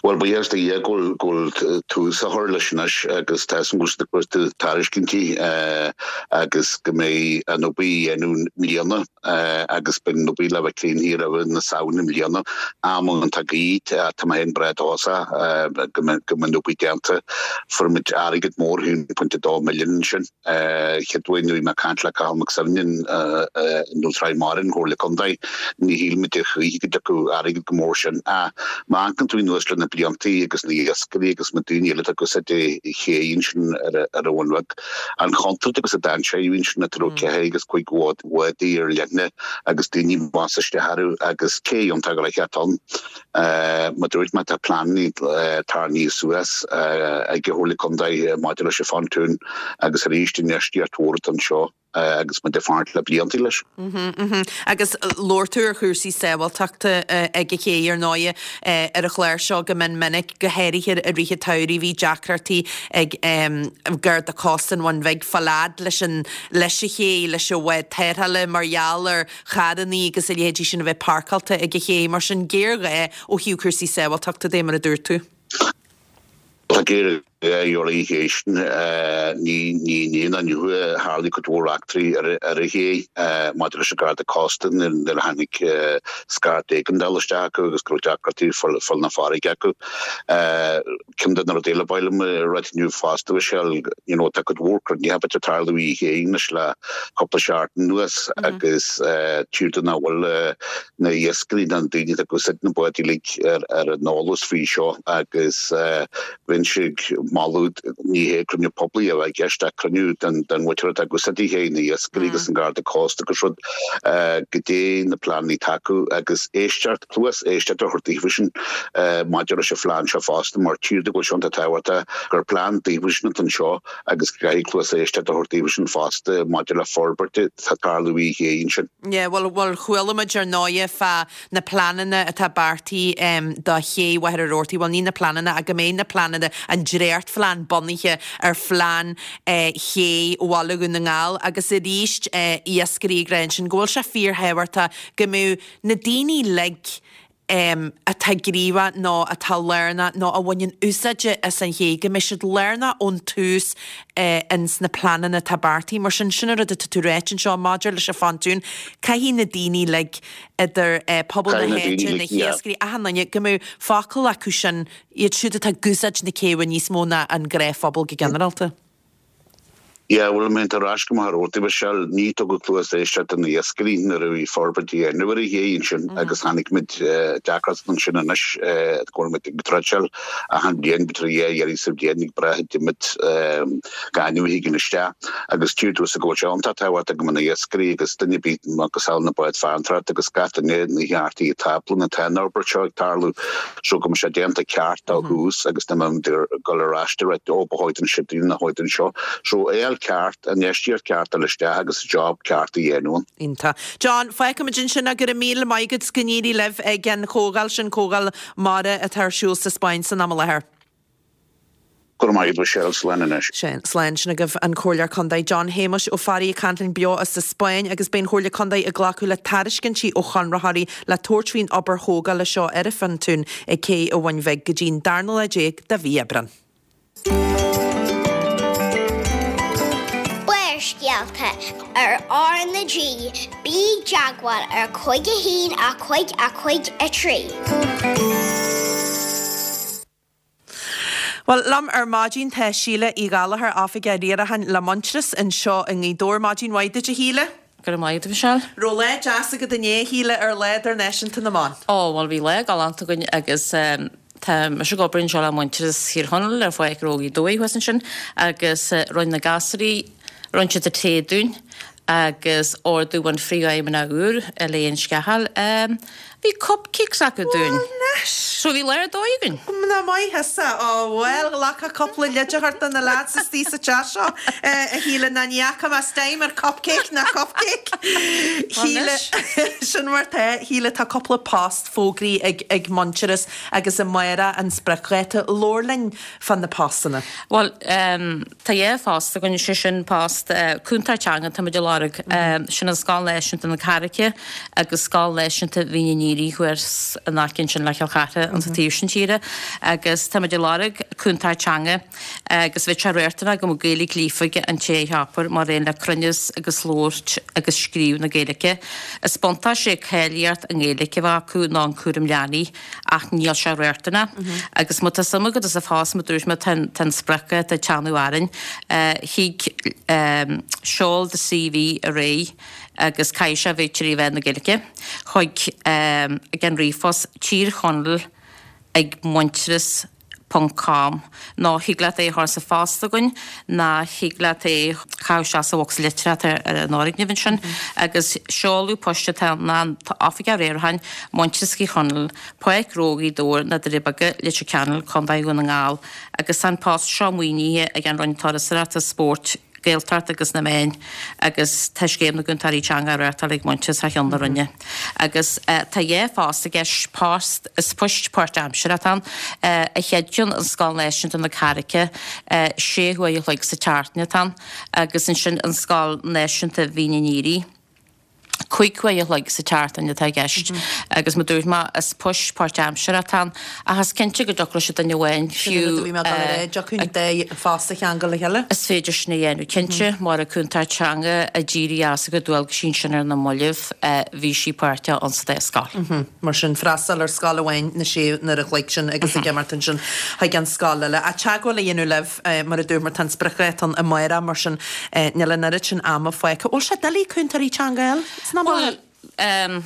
Bhuel, buíochas do Dhia go bhfuil go bhfuil tús á chur leis anois agus tá a fhios agam go bhfuil siad ag cuartú tairiscintí agus go mbeidh an obair á dhéanamh i mbliana. agus beidh an obair le bheith críochnaithe roimh na Samhna i mbliana. Am iontach gaoth, tá mé féin breá dóchasach go mbeidh an obair déanta. Fuair muid airgead mór, 1.2 milliún ansin. Chéad uair nuair a bhí mé ag caint le Cathal Mac Suibhne i Dún Mara an Chomhairle Contae, ní shíl muid a choíche go dtiocfadh airgead chomh mór sin. Ach má amharcann tú anuas le na bliantaí agus na iascairí agus na daoine eile atá ag úsáid an ché ansin ar an Bhun Bheag, An chontúirt agus an dainséar a bhí ansin nuair a raibh ceithre agus cuig bhádaí ar leithne agus daoine ag bás isteach orthu agus cé iontach gnoitheach ann. Mar dúirt mé tá pleananna tarraingthe suas ag an Chomhairle Contae maidir leis an phontún agus arís infheistíocht mhór atá anseo agus muid ag fanacht le blianta leis. Agus labhair tú ar chúrsaí sábháilteachta ag an ché ar ndóighe ar an chlár seo go mion minic, go háirithe i rith an tsamhraidh bhí deacrachtaí ag Garda Cósta an Bhun Bhig fáil fhad leis an leis an ché, leis an bhád tarrthála mar gheall ar charrannaí agus a leithéidí sin a bheith páirceáilte ag an ché. Mar sin géarghá ó thaobh cúrsaí sábháilteachta de mar a dúirt tú. Tá géarghá ar an ché sin. Ní inné ná inniu a tharlaigh cuid mhór eachtraí ar an ché maidir leis an Garda Cósta nuair a tháinig scairt éigeandála isteach acu agus go raibh deacrachtaí ag fáil na farraige acu. Ceann de na rudaí eile ba mhaith liom a ráit inniu fosta, Michelle, you know, tá cuid mhór cruinnithe ag tarlú ar an ché anois le cúpla seachtain anuas agus tchítear domh nach bhfuil na hiascairí ná na daoine atá ag úsáid na báid uilig ar an eolas faoi seo agus bheinnse ag moladh, ní hé cruinniú poiblí a bheadh i gceist ach cruinniú den mhuintir atá ag úsáid an ché, na hiascairí agus an Garda Cósta agus rud, goidé na pleananna atá acu agus éisteacht, cluas éisteachta a thabhairt daofasan maidir leis an phlean seo fosta mar tchítear domh go bhfuil sé iontach tábhachtach gur plean daofasan atá anseo agus go gcaithfidh cluas éisteachta a thabhairt daofasan fosta maidir le forbairt atá ag tarlú ar an ché ansin. Yeah, bhuel, bhuel, chuala muid ar ndóighe fá na pleananna atá beartaithe do ché Mhachaire Rabhartaigh, bhuel ní na pleananna ach go mbeidh na pleananna, an dréachtphlean bunaithe ar phlean ché Bhaile Dhún na nGall agus arís iascairí ag rá ansin go bhfuil sé fíorthábhachtach go mbeadh na daoine uilig atá gníomhach nó atá lárnach nó a bhaineann úsáid as an ché, go mbeidh siad lárnach ón tús ins na pleananna atá beartaithe. Mar sin, sin an rud atá tú ráit anseo maidir leis an phontún, caithfidh na daoine uilig, idir pobal na háite, na hiascairí, achan duine, go mbeadh focal acu sin, iad siúd atá ag úsáid na céibhe níos mó ná an gnáthphobal go ginearálta. Yeah, bhuel, má théann tú ar ais go Machaire Rabhartaigh, Michelle, ní tugadh cluas éisteachta do na hiascairí nuair a bhí forbairt á dhéanamh ar an ché ansin agus chonaic muid deacracht ansin anois go bhfuil muid ag dredgeáil achan bhliain, b'fhéidir dhá iarraidh sa bhliain ag brath an iomad gaineamh a thigeann isteach agus tchítear domhsa go bhfuil sé iontach tábhachtach go mbeadh na hiascairí agus duine ar bith macasamhail na báid farantóireachta agus gach duine na ceartaí atá tábla atá an fhorbairt seo ag tarlú. So go mbeadh sé déanta ceart ó thús agus ní mbeidh muid ag dul ar ais de réir ó ba chóir don seo nó chóir don seo. So é fháil ceart, an infheistíocht ceart a fháil isteach agus job ceart a dhéanamh ann. Iontach. John, fágfaimid ansin é, go raibh míle maith agat 's go n-éirí libh ag an chomhdháil sin, Comhdháil Mara atá ar siúl sa Spáinn san am i láthair. Go raibh maith agat Michelle, slán anois. Sin, slán. Sin agaibh an Comhairleoir Contae John Shéamuis Ó Fearraigh ag caint linn beo as an Spáinn agus beidh an Chomhairle Contae ag glacadh le tairiscintí ó chonraitheoirí le tabhairt faoin obair thógála seo ar an phontún ag Cé an Bhuin Bhig go dtí an darna lá déag de mhí Aibreán. Barrscéalta ar R na G, bí i dteagmháil ar 5 1 5 5 3. Bhuel, liom ar maidin tá Síle Uí Ghallchóir, Oifigeach Riaracháin le Muintearas anseo i nGaoth Dobhair. Maidin mhaith duit, a Shíle. Go raibh maith agat, a Mhichelle. Raibh lá deas agat inné, a Shíle, ar Lá Idirnáisiúnta na mBan? Ó, bhuel, bhí lá galánta againn agus tá mise ag obair anseo le Muintearas Thír Chonaill ar Pháirc Ró Ghaoth Dobhair thuas ansin agus rinne na gasúraí, rinne siad an tae dúinn agus ordú ón phríomhfheidhmeannach úr, Elaine Scahill, bhí cupcakes acu dúinn. Bhuel anois! So bhí lá ar dóigh againn. Mná maith thusa. Ó bhuel, ghlacfá cúpla leid a thabhairt do na lads istigh sa teach seo, a Shíle, ná ní fhaca mé stime ar cupcake ná cupcake. Shíle, sin mar tá. Shíle, tá cúpla post fógraithe ag ag Muintearas agus amárach an spriocdháta. Labhair linn fá na postanna. Bhuel, Tá dhá phost againn, sé sin post cúntóir teanga táimid ag lorg, sin an Scoil Náisiúnta na Carraice agus Scoil Náisiúnta Mhín an Aoire thuas in aice ansin le Cill Chartha an taobh sin tíre agus táimid ag lorg cúntóir teanga agus bheadh sé riachtanach go mbeadh Gaeilge líofa ag an té a cheapfar mar aon le cruinneas agus labhairt agus scríobh na Gaeilge. Is buntáiste é cáilíocht i nGaeilge a bheith acu nó an cúram leanaí. ach níl sé riachtanach. Agus má tá suim agat sa phost, mar dúirt mé, tá an spriocdháta ag teannadh orainn. Thig seol do CV ar aghaidh agus caithfidh sé a bheith trí mheán na Gaeilge chuig ag an ríomhphost Tír Chonaill ag Muintearas ponc com nó thig leat é a chur sa phost chugainn ná thig leat é a chaitheamh isteach sa bhocsa litreach atá ar an fhoirgneamh ansin agus seoladh poist atá ann ná an tOifigeach Riaracháin, Muintearas Thír Chonaill, Páirc Ró Ghaoth Dobhair, Na Doirí Beaga, Leitir Ceanainn, Contae Dhún na nGall agus tá an post seo maoinithe ag an Roinn Turasóireachta, Spóirt, Gaeltacht agus na Meáin agus tá Scéim na gCúntóirí Teanga á reáchtáil ag Muintearas thar cheann na Roinne. Agus tá dhá phost i gceist, post, is poist páirtaimseartha atá ann, an chéad cheann an Scoil Náisiúnta na Carraice, sé huaire a chloig sa tseachtain atá ann, agus ansin an Scoil Náisiúnta Mhín an Aoire. 5 uair a chloig sa tseachtain atá i gceist agus mar dúirt mé is poist páirtaimseartha atá ann ach is cinnte go dtiocfadh leis an duine amháin Sin an rud a bhí mé ag dul a rá, dtiocfadh an dá phost a cheangal le chéile? Is féidir sin a dhéanamh cinnte, mar an cúntóir teanga a d'éirigh as a cuid dualgaisí ansin ar na mallaibh, bhí sí páirteach ann sa dá scoil. Mar sin, freastal ar scoil amháin na sé n-uair a chloig sin agus ag imeacht ansin chuig an scoil eile. Ach teagmháil a dhéanamh libh, mar a dúirt muid, tá an spriocdháta ann amárach, mar sin níl an oiread sin ama fágtha. Bhfuil sé doiligh cúntóirí teanga a fháil san am i láthair? Bhuel,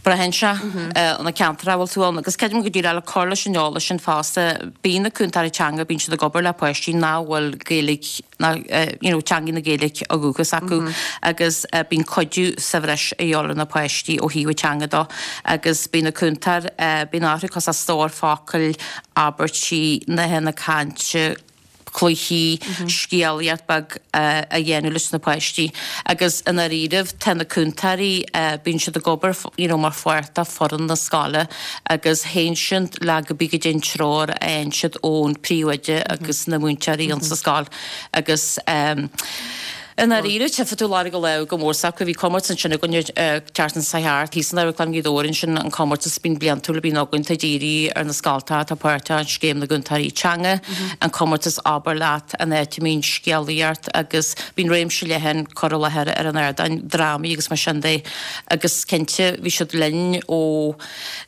braitheann sé ar na ceantair a bhfuil tú ann agus creidim go díreach le cur leis an eolas sin fosta, bíonn na cúntóirí teanga, bíonn siad ag obair le páistí nach bhfuil Gaeilge, ná you know teangaidh na Gaeilge ó dhúchas acu agus bíonn cuidiú sa bhreis a dhíobháil ar na páistí ó thaobh an teanga dó agus bíonn na cúntóir bíonn orthu cosúil stór focail, abairtí, nathanna cainte, cluichí, scéalaíocht beag a dhéanamh leis na páistí agus i ndáiríribh tá na cúntóirí bíonn siad ag obair you know mar pháirt de foireann na scoile agus théann siad le cibé goidé an treoir a fhaigheann siad ón príomhoide agus na múinteoirí insa scoil agus i ndáiríre tchífidh tú lorg a lámh go mór s'acu. Bhí comórtas ansin againn an tseachtain seo thart, thíos in Amharclann Ghaoth Dobhair ansin, an comórtas bíonn bliantúil a bhíonn againn atá dírithe ar na scoltacha atá páirteach in Scéim na gCúntóirí Teanga, an comórtas Abair Leat, an áit a mbíonn scéalaíocht agus bíonn réimse leathan cur i láthair ar an ardán, drámaí agus mar sin de agus cinnte bhí siad linn ó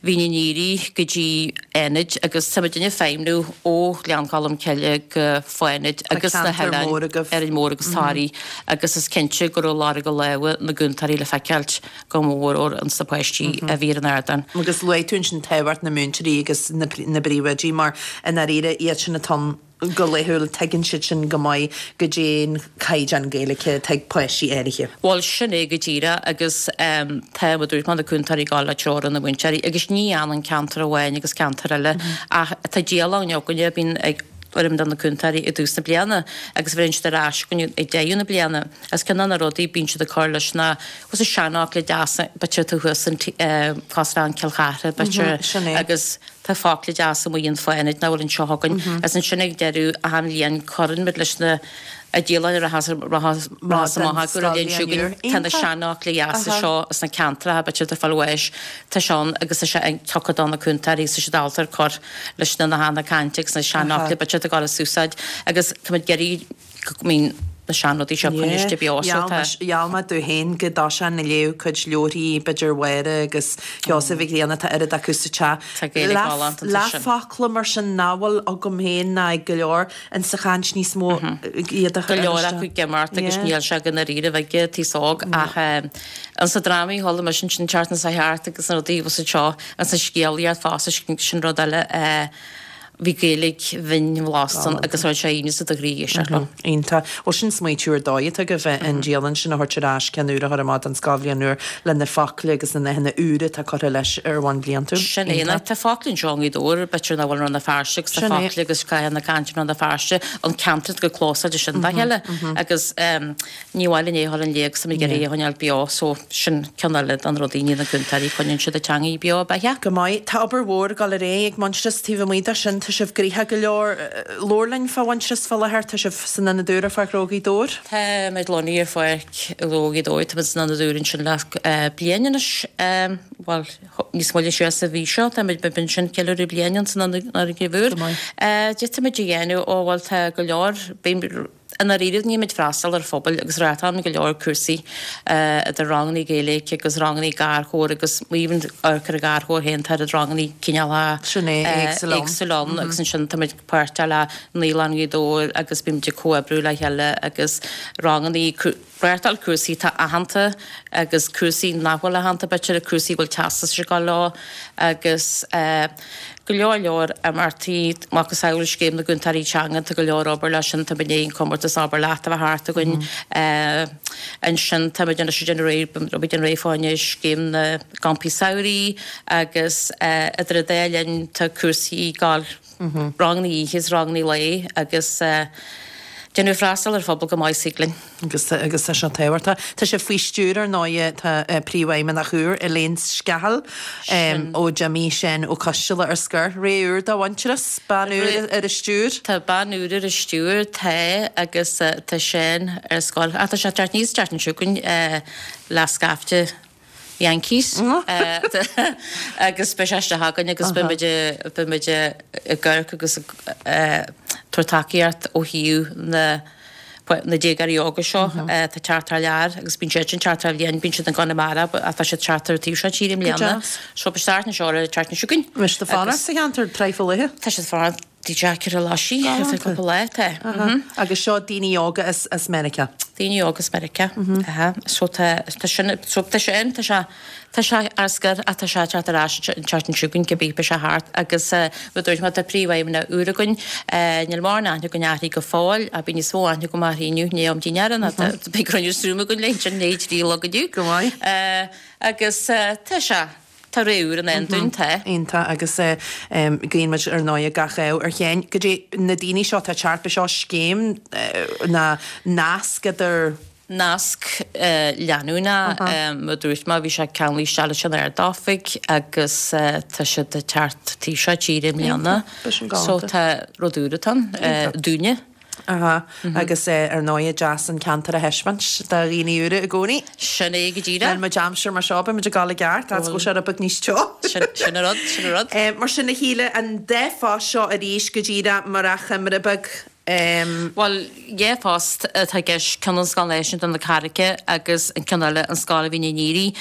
Mhín an Aoire go dtí Fhánaid agus tá muidinne ag feidhmniú ó Ghleann Cholm Cille go Fánaid agus na hoileáin Árainn Mhór agus Toraigh agus is cinnte go raibh lorg a lámha na gcúntóirí le feiceáilt go mór mór ins na páistí a bhí ar an ardán. Agus luaigh tú ansin tábhacht na múinteoirí agus na bpríomhoidí mar i ndáiríre iad sin atá ann go laethúil, tuigeann siad sin go maith goidé an caighdeán Gaeilge atá ag páistí áirithe. Bhuel, sin é go díreach agus tá, mar a dúirt mé, na cúntóirí ag gabháil le treoir ó na múinteoirí agus ní fhanann ceantar amháin agus ceantar eile ach tá dialann againne a bhíonn ag foireann de na cúntóirí i dtús na bliana agus bheireann siad ar ais chugainn ag deireadh na bliana agus ceann de na rudaí bíonn siad ag cur leis na bhfuil na seanfhocla deasa b'fhéidir atá thuas in cosúil le Cill Chartha b'fhéidir agus Tá focla deasa amuigh in Fánaid nach bhfuil anseo againn. Agus ansin ag deireadh achan bhliain cuireann muid leis na dialann a rachas amach acu an bhliain seo chugainn. Tá na seanfhocla dheasa seo as na ceantracha b'fhéidir atá ag fáil bháis. Tá sé ann agus tá sé tugtha do na cúntóirí agus tá siad ábalta ar cur leis na nathanna cainte agus na seanfhocla b'fhéidir atá ag dul as úsáid agus tá muid ag iarraidh go mbíonn na seanrudaí seo coinniste beo so tá. Gheall mé domh féin go dtoiseoinn ag léamh cuid leabharthaí b'fhéidir Mháire agus Sheosaimh Mhic Grianna, tá oiread acu sa teach. Tá Gaeilge galánta ansin. Leathfhocla mar sin nach bhfuil agam féin ná ag go leor insa chaint níos mó iad a chur Go leor acu ag imeacht agus níl sé go ndáiríribh ag an t-aos óg ach ansa drámaí chuala mise ansin an tseachtain seo thart agus na rudaí bhfuil seo ansa scéalaíocht fosta sin rud eile Bhí Gaeilge bhinn bhlasta ann agus raibh sé ionas i do chroí éisteacht leo. Iontach. Bhuel sin smaoitiú ar dóigh atá agaibh an dialann sin a thabhairt ar ais, ceann úr a chur amach don scoilbhliain úr le na focla agus na nathanna úra atá curtha leis ar bhonn bliantúil. Sin é. Iontach. Tá focla anseo i nGaoth Dobhair, b'fhéidir nach bhfuil i Rann na Feirste agus tá focla agus nathanna cainte i Rann na Feirste, an ceantar go clósáilte sin dá chéile agus Ní mhaith linn é a dhul in léig 's táimid ag iarraidh é a choinneáil beo so sin ceann eile de na rudaí ní na cúntóirí coinníonn siad an teangaidh beo ab ea? Go maith. Tá obair mhór ag dul ar aghaidh ag Muintearas taobh amuigh de sin. Tá sibh gnoitheach go leor. Labhair linn fá Mhuintearas fá láthair. Tá sibh san ionad úr ar Pháirc Ghnó Ghaoth Dobhair. Táimid lonnaithe ar Pháirc Ghnó Ghaoth Dobhair. Táimid san ionad úr ansin le bliain anois. Bhuel, níos moille siar sa mhí seo táimid ansin ceiliúradh bliain ann san fhoirgneamh úr. Go maith. Cad táimid a dhéanamh, ó bhuel tá go leor, I ndáiríre bímid ag freastal ar phobail agus reáchtálann go leor cúrsaí idir rangannaí Gaeilge agus rangannaí garchabhair agus even amharc ar an gharchabhair féin tá oiread rangannaí cineálacha Sin é, éagsúil ann. éagsúil ann agus ansin táimid páirteach le Naíolann Ghaoth Dobhair agus bímid ag comhoibriú le chéile agus rangannaí reáchtáil cúrsaí atá aitheanta agus cúrsaí nach bhfuil aitheanta b'fhéidir, cúrsaí a bhfuil teastas ag gabháil leo agus go leor leor imeachtaí, macasamhail Scéim na gCúntóirí Teanga, tá go leor obair leis sin, tá muid i ndiaidh an comórtas Abair Leat a bheith thart againn ansin, táimid anois ag déanamh réidh, beimid ag déanamh réidh fá choinne Scéim na gCampaí Samhraidh agus idir an dá linn tá cúrsaí ag gabháil, rangannaí oíche is rangannaí lae agus déanamh freastal ar phobal go maith is thig linn. Agus agus tá sé tábhachtach. Tá sé faoi stiúir ar ndóighe, tá Príomhfheidhmeannach úr, Elaine Scahill, ó d'imigh Seán Ó Coisteala ar scor. Ré úr do Mhuintearas, bean úr ar an stiúir. Tá bean úr ar an stiúir, tá, agus tá Seán ar scor. Ach tá sé ag teacht aníos an tseachtain seo chugainn le scaifte. Yankees agus beidh sé isteach againn agus beidh muid beidh muid ag amharc agus ag tabhairt tacaíocht ó thaobh na na déagóirí óga seo atá ag teacht thar lear agus bíonn siad ag teacht thar bhliain, bíonn siad i gConamara ach tá siad ag teacht ar an taobh seo tíre i mbliana. So beidh start na seo ar an tseachtain seo chugainn. Beidh siad ag fanacht sa cheantar tráth fá leith. Tá siad ag fanacht i dteach ar an Laisigh ar feadh cúpla lá, tá. Agus seo daoine óga as Meiriceá. Daoine óga as Meiriceá, aha. So tá, tá sin, so tá sé ann, tá sé, tá sé ar scor ach tá sé ag teacht ar ais an tseachtain seo chugainn, cibé, beidh sé thart agus mar a dúirt mé, tá príomhfheidhmeannach úr againn, níl mórán aithne againn uirthi go fóill ach beidh níos mó aithne agam uirthi inniu, ní am dínnéara ná tá, beidh cruinniú Zoom againn léi ansin i ndiaidh a 3 a chlog inniu. Go maith. Agus tá sé. Tá ré úr i ndán dúinn, tá. Iontach agus guíonn muid ar ndóigh gach ádh ar Sheáin. Go dtí na daoine seo atá ag teacht, beidh seo scéim ná nasc idir. Nasc leanúnach, mar a dúirt mé, bhí sé ceanglaithe isteach leis an Ard-Oifig agus tá siad ag teacht taobh seo tíre i mbliana. So tá rud úr atá ann dúinne. Aha, agus ar ndóigh deas an ceantar a thaispeáint do dhaoine úra i gcónaí. Sin é go díreach. Níl muid aimsir mar seo, beidh muid ag dul i gceart, fhad is go bhfuil sé rud beag níos teo. Sin an rud, sin an rud. Mar sin a Shíle, an dá phost seo arís go díreach mar achoimre beag. Bhuel, dhá phost atá i gceist, ceann an Scoil Náisiúnta na Carraice agus an ceann eile an Scoil Mhín an Ghriaigh.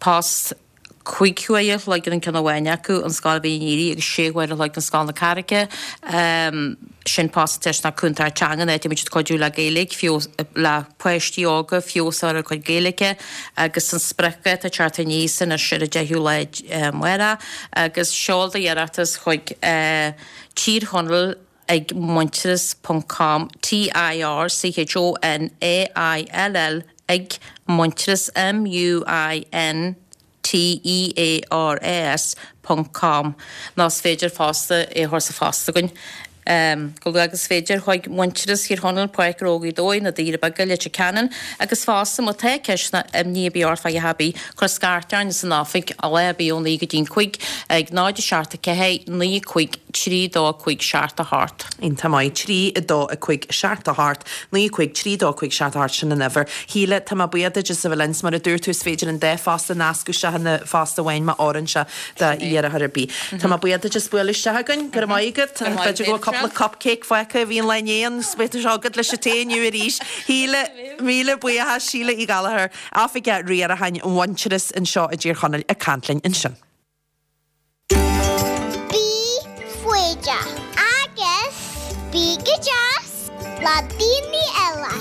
Post. 5 huaire a chloig ar an ceann amháin acu, an Scoil Mhín an Ghriaigh, agus 6 huaire a chloig don Scoil na Carraice. Sin post deis ná cúntóir teanga, áit a mbeidh siad cuidiú le Gaeilge, feabhas, le páistí óga, feabhas a chur ar a gcuid Gaeilge agus an spriocdháta ag teacht aníos anois ar an 10ú lá amárach agus seol do iarratas chuig Tír Chonaill ag muintearas ponc com, T-I-R-C-H-O-N-A-I-L-L ag muintearas, M-U-I-N-T-E-A-R-A-S, ponc com nó is féidir fosta é a chur sa phost chugainn chomh luath agus is féidir chuig Muintearas Thír Chonaill, Páirc Ghnó Ghaoth Dobhair, Na Doirí Beaga, Leitir Ceanainn agus fosta má tá ceist ná imní ar bith ort fá dhath ar bith, cuir scairt orainn san oifig lá ar bith ó 9 go dtí'n 5 ag 0 7 4 9 5 3 2 5 7 8. Iontach maith. 3 2 5 7 8 9 5 3 2 5 7 8 sin an uimhir. Shíle, tá mé buíoch duit as a bheith linn. 'S mar a dúirt tú is féidir an dá phost a nascadh isteach ina phost amháin má oireann sé do iarrthóir ar bith. Tá mé buíoch duit as bualadh isteach againn. Go raibh maith agat. B'fhéidir go bhfuil cúpla cupcake fágtha a bhí an lá inné ann 's beidh sé agat leis an tae inniu arís. Shíle, míle buíochas. Síle Uí Ghallchóir, Oifigeach Riaracháin Mhuintearas anseo i dTír Chonaill ag caint linn ansin. Bí foighdeach agus bí go deas le daoine eile.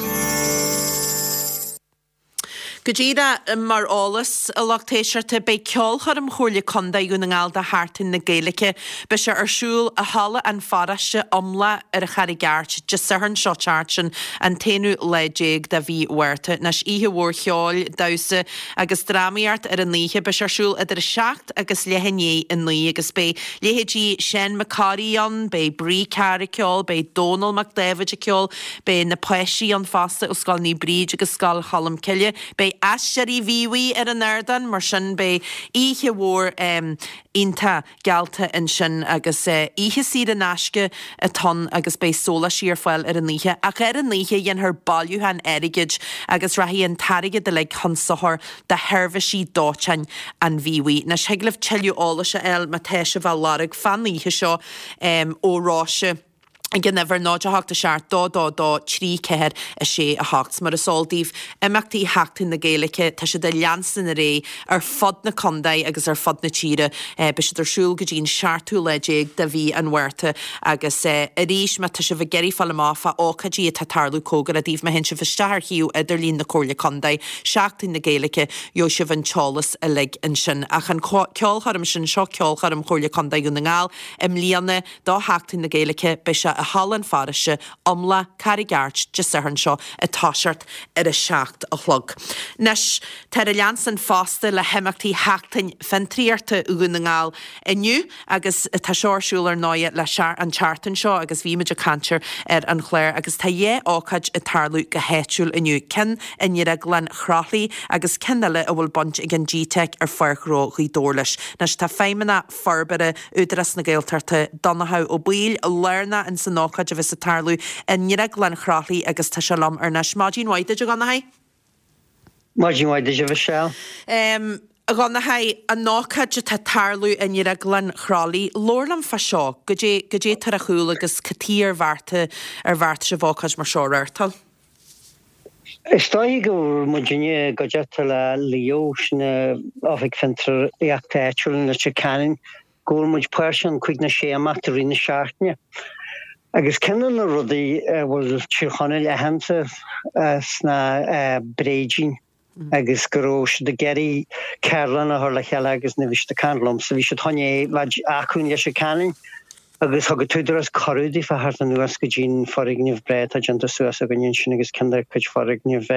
Go díreach mar eolas, a lucht éisteachta, beidh ceolchoirm Chomhairle Contae Dhún na nGall do Sheachtain na Gaeilge. Beidh sé ar siúl i Halla an Pharóiste, Iomlach ar an Charraig Airt, Dé Sathairn seo teacht, sin an t-aonú lá déag de mhí Mhárta. Anois, oíche mhór cheoil, damhsa agus drámaíocht ar an oíche. Beidh sé ar siúl idir 7 agus leath i ndiaidh 9 agus beidh leithéidí Seán Mac Corraidh ann, beidh Bree Carr ag ceol, beidh Dónall Mac Dáibhid ag ceol, beidh na páistí ann fosta ó Scoil Naomh Bríd agus Scoil Cholm Cille, beidh Aisteoirí Mhíobhaigh ar an ardán, mar sin beidh oíche mhór iontach. geallta ansin agus oíche saor in aisce atá ann agus beidh sóláistí ar fáil ar an oíche. Ach ar an oíche dhéanfar bailiúchán airgid agus rachaidh an t-airgead uilig chun sochair do sheirbhísí dóiteáin an Mhíobhaigh. Anois thig libh tuilleadh eolais a fháil má tá sibh á lorg fán oíche seo ó Róise. ag an uimhir 0 8 7 2 2 2 3 4 6 8. Mar is eol daoibh, imeachtaí Sheachtain na Gaeilge, tá siad ag leanstan ar aghaidh ar fud na contae agus ar fud na tíre. Beidh siad ar siúl go dtí an seachtú lá déag de mhí an Mhárta agus arís má tá sibh ag iarraidh fáil amach fá ócáidí atá ag tarlú cóngarach daoibh, má théann sibh isteach ar shuíomh idirlín na Comhairle Contae, Seachtain na Gaeilge, gheobhaidh sibh an t-eolas uilig ansin. Ach an ceolchoirm sin, seo ceolchoirm Chomhairle Contae Dhún na nGall i mbliana, Do Sheachtain na Gaeilge, beidh sé i Halla an Pharóiste, Iomlach, Carraig Airt, Dé Sathairn seo ag toiseacht ar a 7 a chlog. Anois, táthar ag leanstan fosta le himeachtaí Sheachtain Fiontraíochta Dhún na nGall inniu agus tá seo ar siúl ar ndóighe le an tseachtain seo agus bhí muid ag caint air ar an chlár agus tá dhá ócáid ag tarlú go háitiúil inniu, ceann i nDrioglann Chroithlí agus ceann eile a bhfuil baint ag an GTeic ar Pháirc Ghnó Ghaoth Dobhair leis. Anois tá feidhmeannach Forbartha Údarás na Gaeltachta, Donnchadh Ó Baoill, lárnach ins an ócáid a bheas ag tarlú i nDrioglann Chroithlí agus tá sé liom thar n-ais. Maidin mhaith duit a Dhonnchaidh. Maidin mhaith duit, a Mhichelle. A Dhonnchaidh, an ócáid atá ag tarlú i nDrioglann Chroithlí, labhair liom fá seo, goidé, goidé atá ar chúl agus cad chuige ar bheartaigh, ar bheartaigh sibh ócáid mar seo a reáchtáil? Is dóiche go raibh muidinne i gcuideachta le Leo, sin Oifig Fiontraíochta Áitiúil in Leitir Ceanainn, go bhfuil muid páirteach in cúig nó sé imeacht i rith na seachtaine. Agus ceann de na rudaí a bhfuil Tír Chonaill aitheanta as ná bréidín agus go raibh siad ag iarraidh ceardlann a chur le chéile agus nuair a bhí siad ag caint liomsa bhí siad chun é bheith acu in Leitir Ceanainn agus thug an tÚdarás cuireadh daofa theacht anuas go dtí an foirgneamh breá atá déanta suas againne ansin agus ceann de chuid foirgneamh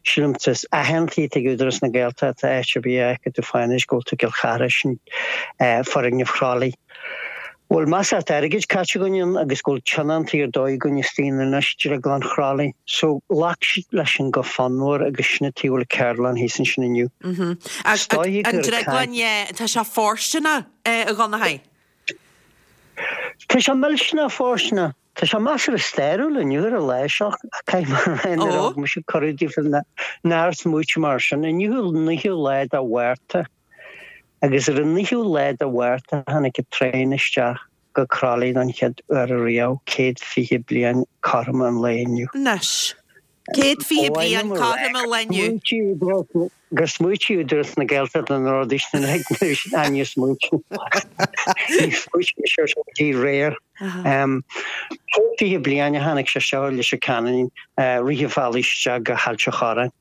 sílim is aitheantaí atá ag Údarás na Gaeltachta áit ar bith a fheicfidh tú fá anois go bhfuil tú i gCill Chartha sin foirgneamh Chroithlí. Bhfuil measartha airgid caite againn ann agus go bhfuil tionóntaí ar dóigh againn istigh in anois Drioglann Chroithlí. So ghlac siad leis sin go fonnmhar agus sin an tuige a bhfuil ceardlann thíos ansin inniu. Is dóiche gur An drioglann, yeah, tá sé fóirsteanach, a Dhonnchaidh. Tá sé millteanach fóirsteanach. Tá sé measartha stairiúil inniu ar an lá seo, caithfidh mé a rá, nuair a thug mise cuireadh daofa nár smaoitigh mé air sin. Inniu an naoú lá de Mhárta agus ar an naoú lá de Mhárta tháinig an traein isteach go Croithlí don chéad uair ariamh, 120 bliain cothrom an lae inniu. Anois. 120 bliain cothrom an lae inniu. Gur smaoitigh Údarás na Gaeltachta na rudaí sin uilig nuair níor smaoitigh. Níor smaoitigh mise air sin go dtí aréir. 120 bliain a tháinig sé seo Leitir Ceanainn rith an bhealaigh isteach go hAilt an Chorráin.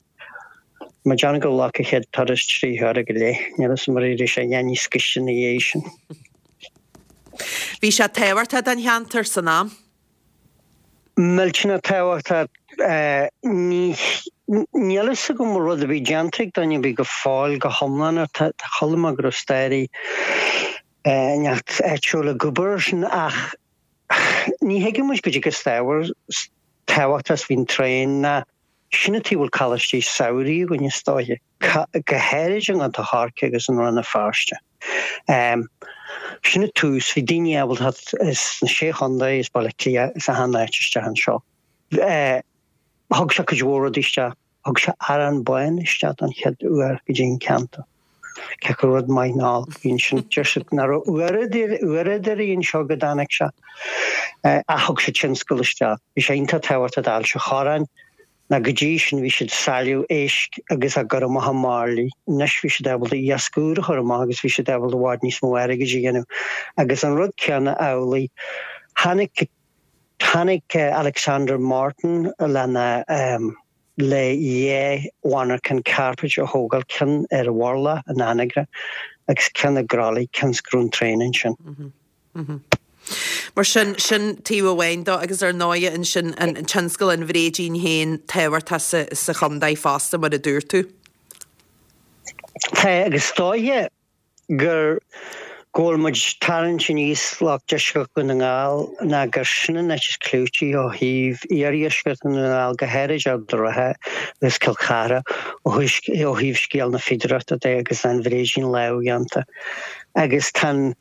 Mé ag déanamh gur ghlac an chéad turas 3 huaire go leith. Níl a fhios agam ar éirigh sé a dhath níos gaiste ina dhiaidh sin. Bhí sé tábhachtach don cheantar san am. Millteanach tábhachtach. Níl a fhios agam an bhfuil rud ar bith déanta ag duine ar bith go fóill go hiomlán air. Tá chuala mé go raibh staraí inteacht áitiúil ag obair air sin ach ní thuigeann muid goidé chomh tábhachtach is a bhí an traein ná sin an tuige a bhfuil coláistí samhraidh againn is dóiche, go háirid i gContae Chorcaí agus in Rann na Feirste. Sin an tús, bhí daoine ábalta theacht as na Sé Chontae, as Baile Átha Cliath, as achan áit isteach anseo. Thug sé cuid mhór rudaí isteach, thug sé arán bán isteach don chéad uair go dtí an ceantar. Cé acu rud maith nó olc a bhí ansin, deir siad nach raibh uaireadóirí anseo go dtáinig sé. Ach thug sé tionscal isteach. Bhí sé iontach tábhachtach d'Ailt an Chorráin ná go dtí sin bhí siad ag sailleadh éisc agus á gcur amach i mbairillí. Anois bhí siad ábalta iasc úr a chur amach agus bhí siad ábalta i bhfad níos mó airgid a dhéanamh. Agus an rud céanna amhlaidh, tháinig, tháinig Alexander Morton lena, le dhá mhonarchan cairpéid a thógáil, ceann ar an Mhurlach in Anagaire agus ceann i gCroithlí, cionn is go raibh an traein ansin. Mar sin, sin taobh amháin dó agus ar ndóighe ansin an tionscal an bhréidín féin tábhachtach sa chontae fosta mar a dúirt tú. Tá agus is dóiche gur go bhfuil muid ag tarraingt aníos lucht deisceart Dhún na nGall ná gur sin an áit is clúití ó thaobh iardheisceart Dhún na nGall, go háirid Ard an Rátha agus Cill Chartha, ó thaobh scéal na fíodóireachta de agus an bhréidín lámhdhéanta. Agus tá an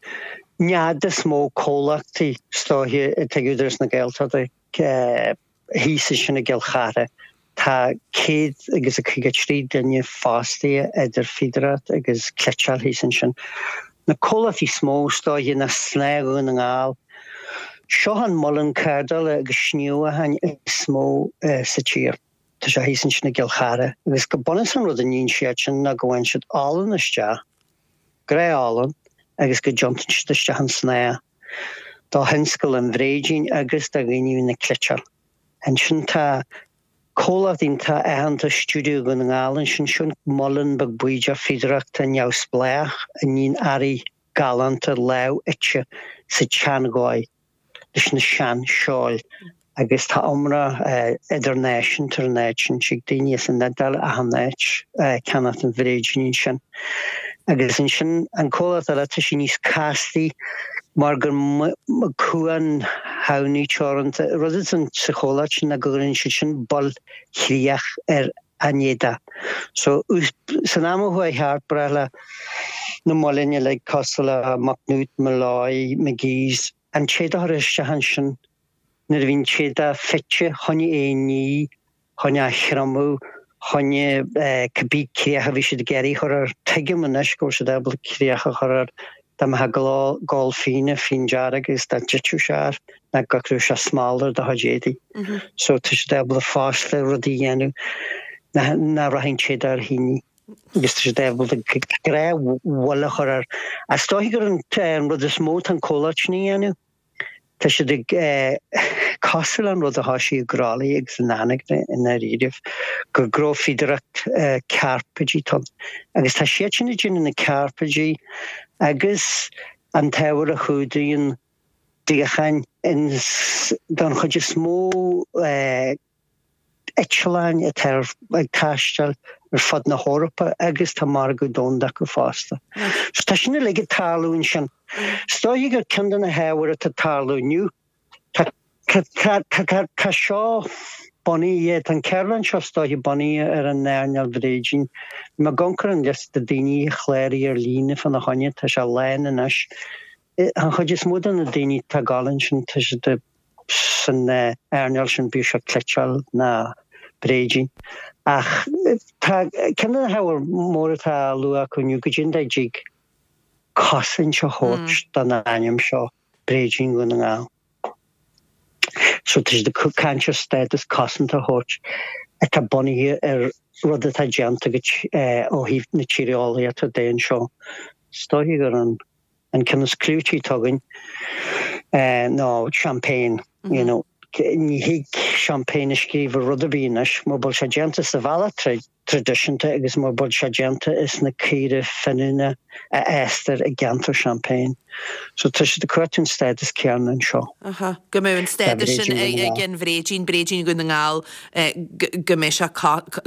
nead is mó comhlachtaí is dóiche atá ag Údarás na Gaeltachta, Thíos ansin i gCill Chartha, tá céad agus a 53 duine fostaithe idir fíodóireacht agus cleiteáil thíos ansin. Na comhlachtaí is mó is dóiche ná Snáth Dhún na nGall. Seo an muileann cardála agus sníomhacháin is mó sa tír. Tá sé thíos ansin i gCill Chartha agus go bunúsach an rud a níonn siad sin ná go bhfaigheann siad olann isteach, gnáth-olann, agus go dtiontaíonn siad isteach an snáth. Do thionscal an bhréidín agus do dhaoine a bhíonn ag cleiteáil. Ansin tá comhlacht iontach aitheanta Stiúideo Dhún na nGall ansin, sin muileann beag bídeach fíodóireachta neamhspleách a níonn earraí galánta lámhfhite sa tseandhóigh. leis na sean-seoil agus tá iomrá idirnáisiúnta ar an áit sin. Tig daoine as an Iodáil achan áit ag ceannacht an bhréidín ansin. Agus ansin an comhlacht eile, tá sé níos castaí mar gur Cuan Thamhnaí Teoranta. Rud atá sa chomhlacht sin ná go gcuireann siad sin bail chríoch ar an éadach. So san am a chuaigh thart, ba ghnách le na muilinn uilig cosúil le Macnaught, Molloy, McGee's, an t-éadach a chur isteach ansin nuair a bhí an t-éadach fite chun é a ní, chun é a thriomú. choinne cibé críoch a bhí siad ag iarraidh a chur air. Tuigim anois go bhfuil siad ábalta críoch a chur air dá mbeifeá ag ól fíona, fíon dearg agus dá dtitfeadh sé air ná go gcuirfeadh sé smál ar do chuid éadaí. So tá siad ábalta fosta rudaí a dhéanamh nach rachaidh an téada ar thine agus tá siad ábalta gnáthfhuil a chur air. Is dóiche gur an rud is mó atá an comhlacht sin a dhéanamh. Tá siad ag cosúil le an rud a thoisigh i gCroithlí agus in Anagaire i ndáiríribh, gur gnófhíodóireacht cairpéidí atá ann. Agus tá siad sin ag déanamh na cairpéidí agus an t-ábhar a chumhdaíonn suíocháin don chuid is mó eitleáin atá ag taisteal ar fud na hEorpa agus tá margadh domhanda acu fosta. So tá sin uilig ag tarlú ansin. Is dóiche gur ceann de na hábhair atá ag tarlú inniu, tá tá tá tá seo bunaithe, tá an ceardlann seo is dóiche bunaithe ar an earnáil bhréidín. Bhí mé ag amharc ar an liosta daoine a chláraigh ar líne fána choinne, tá sé lán anois. An chuid is mó de na daoine atá ag gabháil ansin, tá siad san earnáil sin, bíodh sé cniotáil ná bréidín. Ach tá ceann de na hábhair móra atá á lua acu inniu, goidé an dóigh a dtig cosaint a thabhairt don ainm seo, Bréidín Dhún na nGall. So tá siad ag caint ar stádas cosanta a thabhairt atá bunaithe ar rud atá déanta agat ó thaobh na tíreolaíochta de anseo. Is dóiche gur an An ceann is clúití atá againn ná Champagne, you know. Ní thig Champagne a scríobh ar rud ar bith anois mura bhfuil sé déanta sa bhealach traidisiúnta agus mura bhfuil sé déanta as na caora fíniúna a fhástar i gceantar Champagne. So tá siad ag cuartú an stádas céanna anseo. Aha, go mbeadh an stádas sin ag an bhréidín, bréidín Dhún na nGall, go mbeidh sé,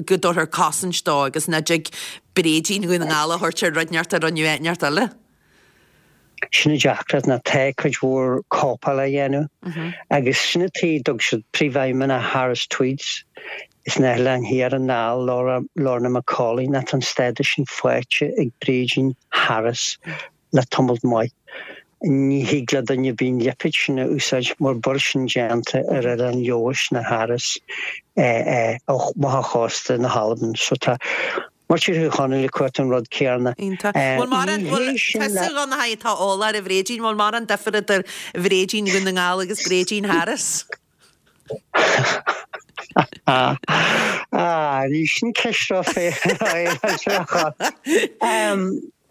go dtabharfar cosaint dó agus nach dtig bréidín Dhún na nGall a thabhairt ar rud inteacht a rinneadh áit inteacht eile. Sin an deacracht ná tá cuid mhór cóipeáil á dhéanamh agus sin an tuige a dtug siad príomhfheidhmeannach Harris Tweeds sna hOileáin Thiar anall, Lorna McAuley, ná tá an stádas sin faighte ag bréidín Harris le tamalt maith. Ní thig le duine ar bith an lipéad sin a úsáid mura bhfuil sin déanta ar Oileán Leodhais ná Harris amach ó chósta na hAlban. So tá Muintir Thír Chonaill ag cuartú an rud céanna. Iontach. Bhfuil mórán, bhfuil, tusa a Dhonnchaidh atá eolach ar an bhréidín, bhfuil mórán difear idir bhréidín Dhún na nGall agus bréidín Harris? Ah, ní sin ceist ró-fhéaráilte.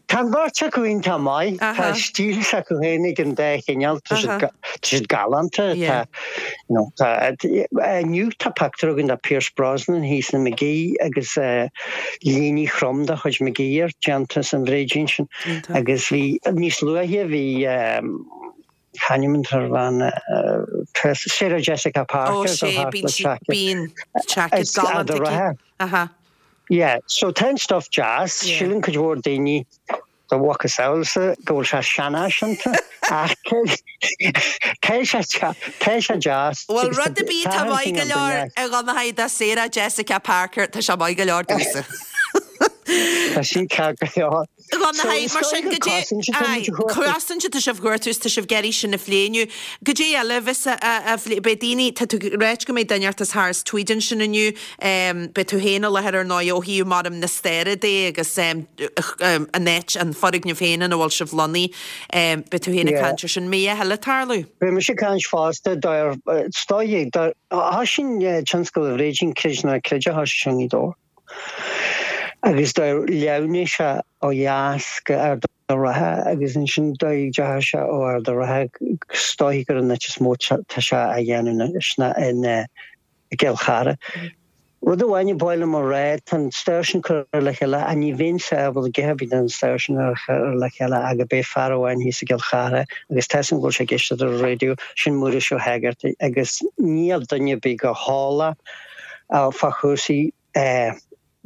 Tá an bheirt acu iontach maith. Tá stíl s'acu féin ag an dá chineál. Tá siad galánta. Inniu tá pictiúr againn de Pierce Brosnan thíos in Magee agus léine throm de chuid Magee air déanta as an bhréidín sin. Agus bhí níos luaithe bhí c'ainm atá ar bhean Sarah Jessica Parker. Ó sé, bíonn seaicéad galánta aici. Yeah, so tá an stuff deas, síleann cuid mhór daoine do mhacasamhailsa go bhfuil sé seanfhaiseanta ach tá sé tá sé deas. Bhuel rud ar bith atá maith go leor a Dhonnchaidh do Sarah Jessica Parker, tá sé maith go leor domhsa. Tá sin ceart go leor. Dhonnchaidh, mar sin, goidé, aye, cosaint atá sibh a chuartú is tá sibh ag iarraidh sin a phlé inniu. Goidé eile a bheas á phlé, beidh daoine, tá tú ag ráit go mbeidh duine inteacht as Harris Tweed ansin inniu, beidh tú féin i láthair ar ndóigh ó thaobh mar na staire de agus an áit, an foirgneamh féin ina bhfuil sibh lonnaithe, beidh tú féin ag caint ar sin. Mbeidh a thuilleadh ag tarlú? Beidh mise ag caint fosta, is dóigh, thoisigh tionscal an bhréidín, creid nó ná creid, thoisigh sé i nGaoth Dobhair. Agus do leathnaigh sé ó dheas go Ard an Rátha agus ansin do dheachaigh sé ó Ard an Rátha is dóichí gur an áit is mó tá sé á dhéanamh anois ná in i gCill Chartha. Rud amháin ba mhaith liom a rá, tá an stair sin curtha le chéile ach ní bheinnse ábalta a dhath ar bith den stair sin a chur le chéile ach gurb é fear amháin thíos i gCill Chartha agus tá 'fhios a'm go bhfuil sé ag éisteacht ar an raidió, sin Muiris Ó hÉigeartaigh agus níl duine ar bith chomh heolach fá chúrsaí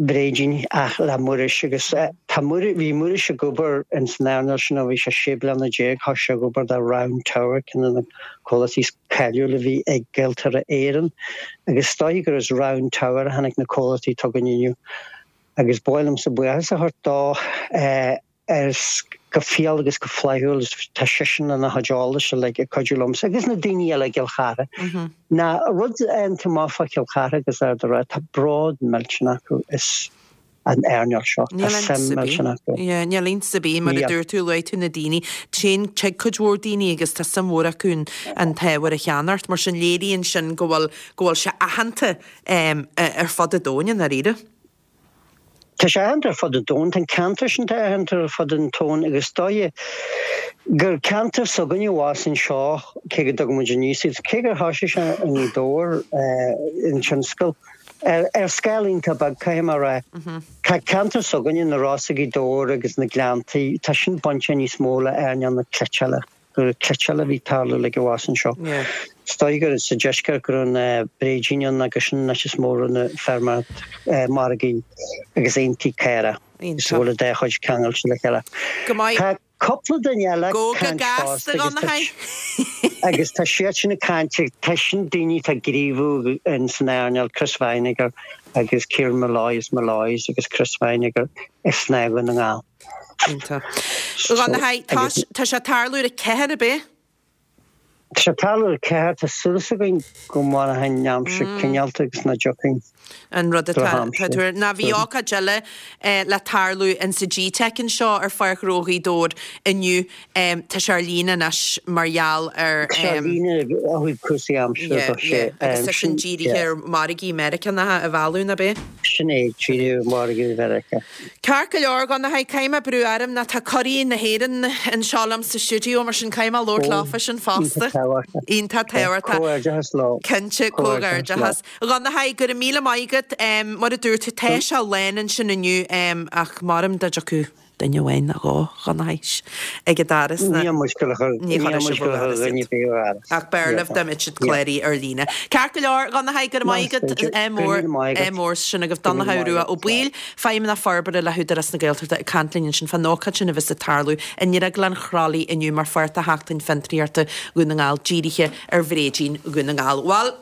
bréidín ach le Muiris agus tá Muiris, bhí Muiris ag obair ins an earnáil sin ó bhí sé 16 bliana, thosaigh sé ag obair do Round Tower, ceann de na comhlachtaí is cáiliúla a bhí ag Gaeltarra Éireann agus is dóichí gur as Round Tower a tháinig na comhlachtaí atá againn inniu agus ba mhaith liomsa buíochas a thabhairt dó. Ar. Go fial agus go flaithiúil tá seisean lena chuid eolais uilig ag cuidiú liomsa agus na daoine eile i gCill Chartha. Ná rud iontach maith fá Chill Chartha agus Ard an Rátha, tá bród millteanach acu as an earnáil seo, tá suim millteanach acu. Yeah, níl iontas ar bith, mar a dúirt tú, luaigh tú na daoine, téann, tig cuid mhór daoine agus tá suim mhór acu an t-ábhar a cheannacht, mar sin léiríonn sin go bhfuil, go bhfuil sé aitheanta ar fud an domhain i ndáiríre. Tá sé aitheanta ar fud an domhain, tá an ceantar sin tá aitheanta ar fud an domhain agus is dóigh gur ceantar s'againne abhus anseo, cé go dtugann muid aníos iad, cé gur thoisigh sé i nGaoth Dobhair an tionscal, ar scála iontach beag caithfidh mé a rá. Tá ceantar s'againne, na Rosa, Gaoth Dobhair agus na Gleanntaí, tá sin bainte níos mó le earnáil na cniotála. gur cniotáil a bhí ag tarlú uilig abhus anseo. Is dóigh gur sa deisceart go raibh na bréidín ann agus sin an áit is mó a raibh na feirmeoireacht margaí agus aontaí caorach is a bhfuil an dá chuid ceangailte le chéile. Go maith. Tá cúpla duine eile ag Go go caint gasta fosta go na agus tá siad sin ag caint tá sin daoine atá ag gníomhú in san earnáil Chris Vinegar agus Kieran Molloy as Molloy's agus Chris Vinegar i Snáth Dhún na nGall. Iontach. A Dhonnchaidh, tá tá sé ag tarlú ar a ceathair, ab é? Tá sé ag tarlú ar a ceathair, tá súil againn go mairfidh an aimsir cineálta agus nach dtiocfaidh An rud atá tá tú ar. Ná bhí ócáid eile le tarlú insa GTeic anseo ar Pháirc Ghnó Ghaoth Dobhair inniu. Tá sé ar líne anois mar gheall ar. Tá sé ar líne ó thaobh cúrsaí aimsire Yeah, do sé. yeah. Agus tá sin dírithe ar mhargaí Meiriceánacha a mhealladh, ná b'é? Sin é, dírithe ar mhargaí Mheiriceá. Ceart go leor, a Dhonnchaidh, caithfidh mé brú orm ná tá curaidh na hÉireann anseo liom sa stiúideo, mar sin caithfidh mé labhairt leofa sin fosta. Iontach tábhachtach. Iontach tábhachtach. Comhghairdeachas leo. Cinnte, comhghairdeachas. A Dhonnchaidh, go raibh míle maith agat. Mar a dúirt tú, tá sé lán ansin inniu, ach maram dá dtiocfadh duine amháin nó dhó, a Dhonnchaidh, ag an doras ná. Níl muid ag gabháil a chur, Ní níl chuirfidh muid sibh ag gabháil a ó chur dhoras dhuine iad. ar bith ó dhoras. Ach b'fhearr libh dá mbeadh siad cláraithe ar líne. Ceart go leor, a Dhonnchaidh, go raibh maith agat. Go Ádh mór, raibh míle maith ádh agat. mór sin agaibh. Go raibh míle Donnchadh maith Rua agat. Ó Baoill, Feidhmeannach Forbartha le hÚdarás na Gaeltachta ag caint linn ansin fán ócáid sin a bheas ag tarlú i nDrioglann Chroithlí inniu mar pháirt de Sheachtain Fiontraíochta Dhún na nGall dírithe ar bhréidín Dhún na nGall. Bhuel,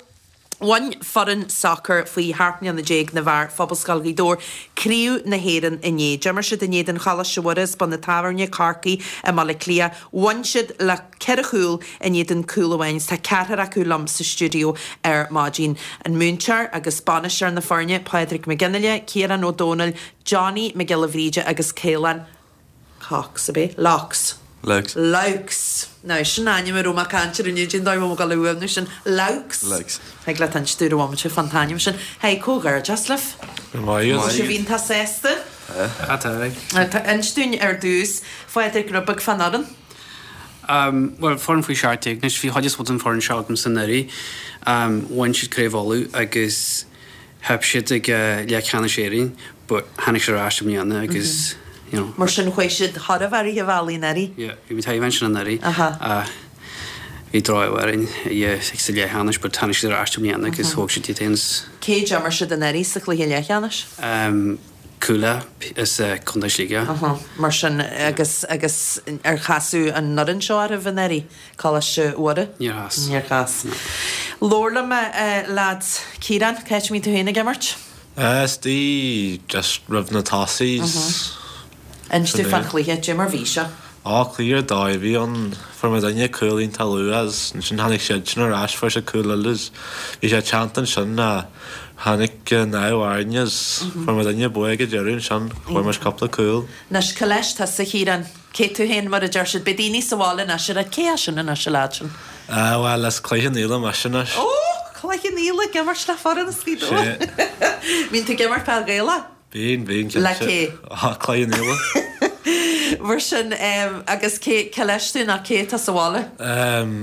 Bhain foireann sacair faoi sheacht mbliana déag na bhfear Phobalscoil Ghaoth Dobhair Craobh na hÉireann inné. D'imir siad in éadan Choláiste Mhuire as Bun an Tábhairne, Corcaigh i mBaile Átha Cliath. Bhain siad le ceithre chúl in éadan cúl amháin agus tá ceathrar acu liom sa stiúideo ar maidin. An múinteoir agus bainisteoir na foirne, Pádraig Mac Fhionnghaile, Ciarán Ó Domhnaill, Johnny Mac Giolla Bhríde agus Caolán Cox, ab é? Laux. Laux. Laux. Now, sin ainm a raibh mé ag caint air inniu, cén dóigh a bhfuil mé ag dul a fhuaimniú sin? Laux. Laux. Thig leat inse dúinn ar bhomaite fán t-ainm sin. Hey, comhghairdeas libh. Go raibh maith agat. Tá sibh iontach sásta? Tá. Tá. Inis dúinn ar dtús, Phádraig, rud beag fán fhoireann. Bhuel, foireann faoi 17 anois, bhí chuid is mó den foireann seo agamsa anuraidh. Bhain siad Craobh Uladh agus Theip siad ag leathcheannais Éireann but tháinig siad ar ais i mbliana agus you know. Mar sin chuaigh siad chóir a bheith rith an bhealaigh anuraidh? Yeah, bhí muid taobh ansin anuraidh ach bhí droch-ádh orainn yeah sa leathcheannais but tháinig siad ar ais i mbliana agus thóg siad iad féin. Cé d'imir siad anuraidh sa chluiche leathcheannais? Cuala as Contae Shligigh. Aha, mar sin agus agus ar casadh an fhoireann seo oraibh anuraidh, Coláiste Mhuire? Níor chas. Níor chas. Labhair liom a lads. Ciarán, cá háit a mbíonn tú féin ag imirt? Istigh just roimh na tosaithe. Inis dúinn fán chluiche, cad é mar bhí sé? Á, cluiche ar dóigh a bhí ann. Fuair muidinne cúl iontach luath agus ansin tháinig siad sin ar ais, fuair siad cúl eile agus bhí sé teannta ansin ach tháinig an ádh orainn agus fuair muidinne bua ag an deireadh ansin, fuair muid cúpla cúl. Anois, cá leis tusa, a Chiaráin? Cé tú féin, mar a deir siad? Beidh daoine sa bhaile anois ag rá, cé é sin anois, an leaid sin? Ah, bhuel, as Cloich Cheann Fhaola mise anois. Ó! Cloich Cheann Fhaola, ag imirt le foireann as Gaoth Dobhair. Sea. Bíonn tú ag imirt peil Ghaelach? Bíonn, bíonn, cinnte. Le cé? Á, Cloich Cheann Fhaola. Mar sin, agus cé, cé leis tú nó cé atá sa bhaile?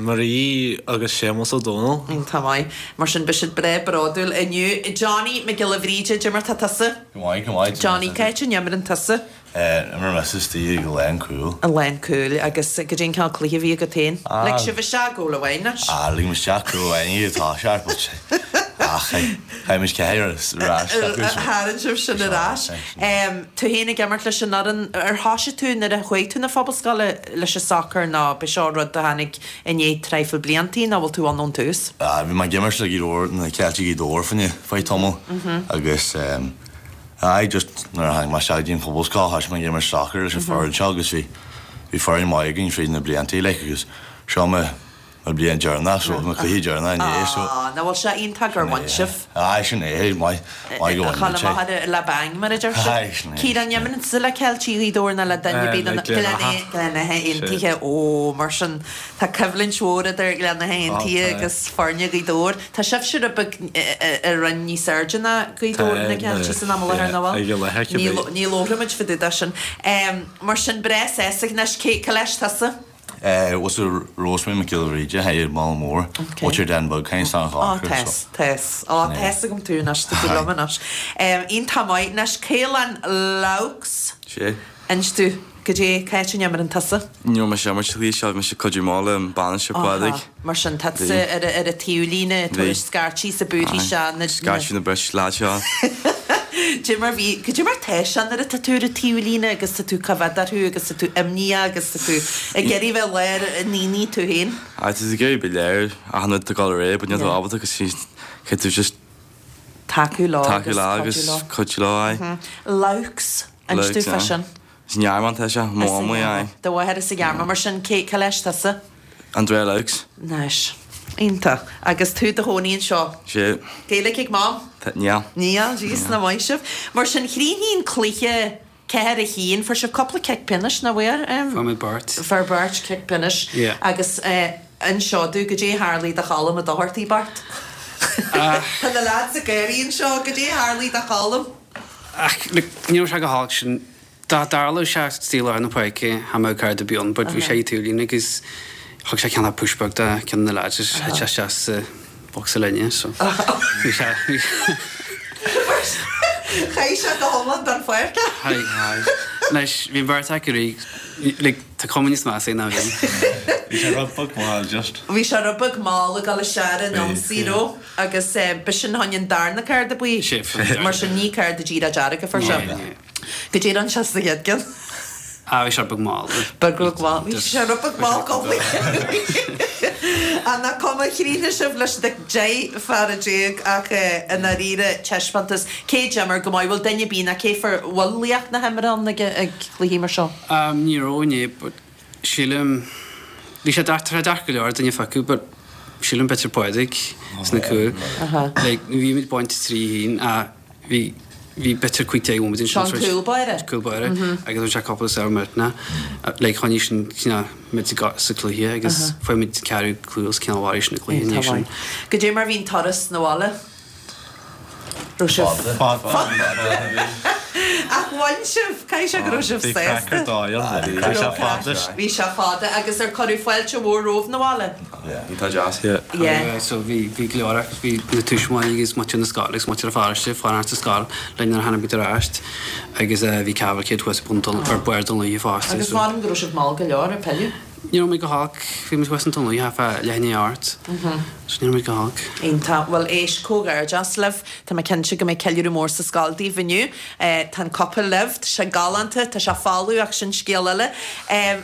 Marie agus Séamus Ó Dónaill. Iontach maith. Mar sin, beidh siad breá bródúil inniu. Johnny Mac Giolla Bhríde, cad é mar tá tusa? Go maith, go maith. Johnny, cá háit a n-imreann tusa? Imrím mise istigh ag lán cúil. I lán cúil agus cad é an cineál cluiche a bhí agat féin? Lig sibh isteach cúl amháin anois. Ah, lig muid isteach cúl amháin ag toiseacht but ach chaith muid ceathair ar ais acu. Tharraing sibh sin ar ais. Tú féin ag imirt leis an fhoireann, ar thoisigh tú nuair a chuaigh tú na Phobalscoile leis an sacar nó b'é seo rud a tháinig i ndiaidh traidhfil bliantaí nó bhfuil tú ann ón tús? Ah, bhí mé ag imirt le Gaoth Dobhair, na Ceiltigh Ghaoth Dobhair fá choinne feadh tamaill agus Aye, just nuair a tháinig mé isteach go dtí an Phobalscoil thoisigh mé ag imirt sacair leis an foireann seo agus bhí. bhí foireann maith againn fríd na blianta like agus seo mo mo bliain deireanach so mo cluiche deireanach inné so. Á, nach bhfuil sé iontach gur bhain sibh? Aye sin é, maith, maith go bhain muid é. A chur amach le bang mar a deir siad. Aye sin é. Ciarán, an imríonn tusa le Ceiltigh Ghaoth Dobhair nó le duine ar bith de na Gleann Átha Aontaithe, ó mar sin tá coimhlint mhór idir Gleann Átha Aontaithe agus foirne Ghaoth Dobhair. Tá sibhse rud beag i roinn níos airde ná Gaoth Dobhair na Ceiltigh san am i láthair, nach bhfuil? Ní labhróimid fá dtaobh de sin. Mar sin, breá sásta anois, cé leis tusa? What's the Rosemary Mac Giolla Bhríde, hi Mall Mór, what's your Den Bug, kind of Ó, tá's, tá's. Ó, tá's agam tú anois, tá tú liom anois. Iontach maith. Anois, Caolán Loughs. Sé. Inis domh, goidé, cá háit a n-imríonn tusa? Ní raibh mise ag imirt sa chluiche seo, bhí mise ag cuidiú amach le an bainisteoir Pádraig. Mar sin, tá tusa ar an taobhlíne, ag tabhairt scairtí is ag búirthí sé na. Scairtí na bris, leaid seo. Goidé mar bhí, goidé mar tá sé nuair atá tú ar an taobhlíne agus tá tú ag coimhéad orthu agus tá tú imníoch agus tá tú ag iarraidh bheith lár an aonaigh tú féin. Aye, tá tú ag iarraidh bheith léir achan rud atá ag dul ar aghaidh, but níl tú ábalta agus caithfidh tú just tacú leo tacú leo agus cuidiú leo, aye. Loughs, inis domh fá sin. Is i nGearmáin atá sé, mo mhamaí, aye. Do mháthair as an Ghearmáin, mar sin, cé, cá leis tusa? Andrea Loughs. Nice. Iontach. Agus tú i do chónaí anseo? Sea. Gaeilge ag Mam? Níl. Níl, jeez, nach maith sibh. Mar sin, chríochnaigh an cluiche 4 1, fuair sibh cúpla cic pionóis, nach bhfuair? Fuair muid beirt. Fuair beirt cic pionóis. Yeah. Agus inis domh, goidé a tharlaigh do Cholm Ó Dochartaigh, Bart? Tá na lads ag gáirí anseo, goidé a tharlaigh do Cholm? Ach, look, ní raibh sé go holc sin. Dá dtarlódh sé istigh i lár na páirce, cha mbeadh cárta ar bith ann, but bhí sé ag taobhlíne agus thug sé cineál push beag do ceann de na lads agus thit sé isteach sa bhocsa linne, so bhí sé, bhí Chaith sé go hiomlán den pháirc é. Chaith, chaith. Anois, bhí an bheirt acu réidh, like, tá cuma níos measa air ná bhí. Bhí sé rud beag mall, just. Bhí sé rud beag mall ag dul isteach ar an ionsaí, raibh? Agus b'shin fá choinne an darna cárta buí. Mar sin ní cárta díreach dearg a fuair sé. Goidé a rinne sé sa chéad ceann. Ah, bhí sé beag mall. Beag beag mall. Bhí sé rud beag mall coblaí. Ach nach cuma, chríochnaigh sibh leis na 10 fear ach i ndáiríre taispeántas. Cé d'imir go maith? Bhfuil duine ar bith ná cé fuair bhfuil laoch na himeartha ann ag cluichí mar seo? Ní raibh inné but Sílim, bhí sé deacair, tá sé deacair go leor duine a phiocadh but sílim b'fhéidir Pádraig sna cúil. Like bhí muid bainte 3 haon ach bhí, bhí b'fhéidir 15 nóiméad ansin. Seo an cúl báire. Cúl báire agus bhain sé cúpla sábh millteanach. Like choinnigh sin cineál muid sa cluiche agus fuair muid ceathrú cúl is cineál mharaigh sin an cluiche inné sin. Goidé mar bhí an turas 'na bhaile? Raibh sibh. Fada. Ach bhain sibh, caithfidh sé go raibh sibh Bhí sásta. craic ar dóigh ann. Bhí sé fada. Bhí sé fada agus ar cuireadh fáilte mhór romhaibh 'na bhaile? Bhí tá deas. Yeah. So bhí bhí go leor acu, bhí na tuismitheoirí agus muintir na scoile agus muintir an pharóiste ag fanacht sa scoil linn nuair a tháinig muid ar ais agus bhí cavalcade thuas bun ar barr Dún Lúiche fosta. Agus measaim go raibh sibh mall go leor ag pilleadh. Ní raibh muid go holc, bhí muid thuas in Dún Lúiche fá leath i ndiaidh a 8. So ní raibh muid go holc. Iontach. Bhuel, éist, comhghairdeas libh. Tá mé cinnte go mbeidh ceiliúradh mór sa scoil daoibh inniu. Tá an cupa libh, tá sé galánta, tá sé folamh ach sin scéal eile.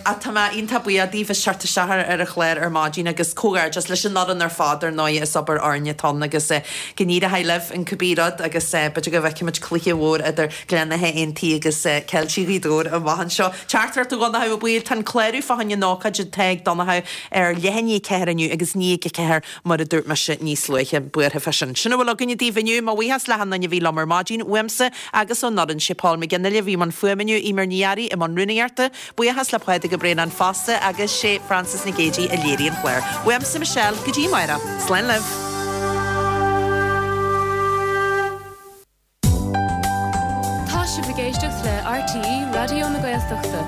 Ach tá mé iontach buíoch daoibh as teacht isteach ar an chlár ar maidin agus comhghairdeas leis an fhoireann ar fad ar ndóigh, is obair fhoirne atá ann agus go n-éireoidh libh in cibé rud agus b'fhéidir go bhfeicfimid cluiche mhór idir Gleann Átha Aontaithe agus Ceiltigh Ghaoth Dobhair amach anseo. Teachtaireacht ó Dhonnchadh Ó Baoill, Tá an clárú fá choinne an ócáid atá ag Donnchadh ar leath i ndiaidh 4 inniu agus 9 ag 4 mar a dúirt mise níos luaithe. Buartha fá sin. Sin a bhfuil againne daoibh inniu. Mo bhuíochas le hachan duine a bhí liom ar maidin, uaimse agus ón fhoireann. Sé Paul McGinley a bhí i mbun fuaime inniu, Eimear Ní Fhearraigh i mbun rúnaíochta. Buíochas le Pádraig Ó Braonáin fosta agus sé Frances Nic Géadaigh a léirigh an clár. Uaimse Michelle, go dtí amárach. Slán libh. Tá sibh ag éisteacht le RTÉ Raidió na Gaeltachta.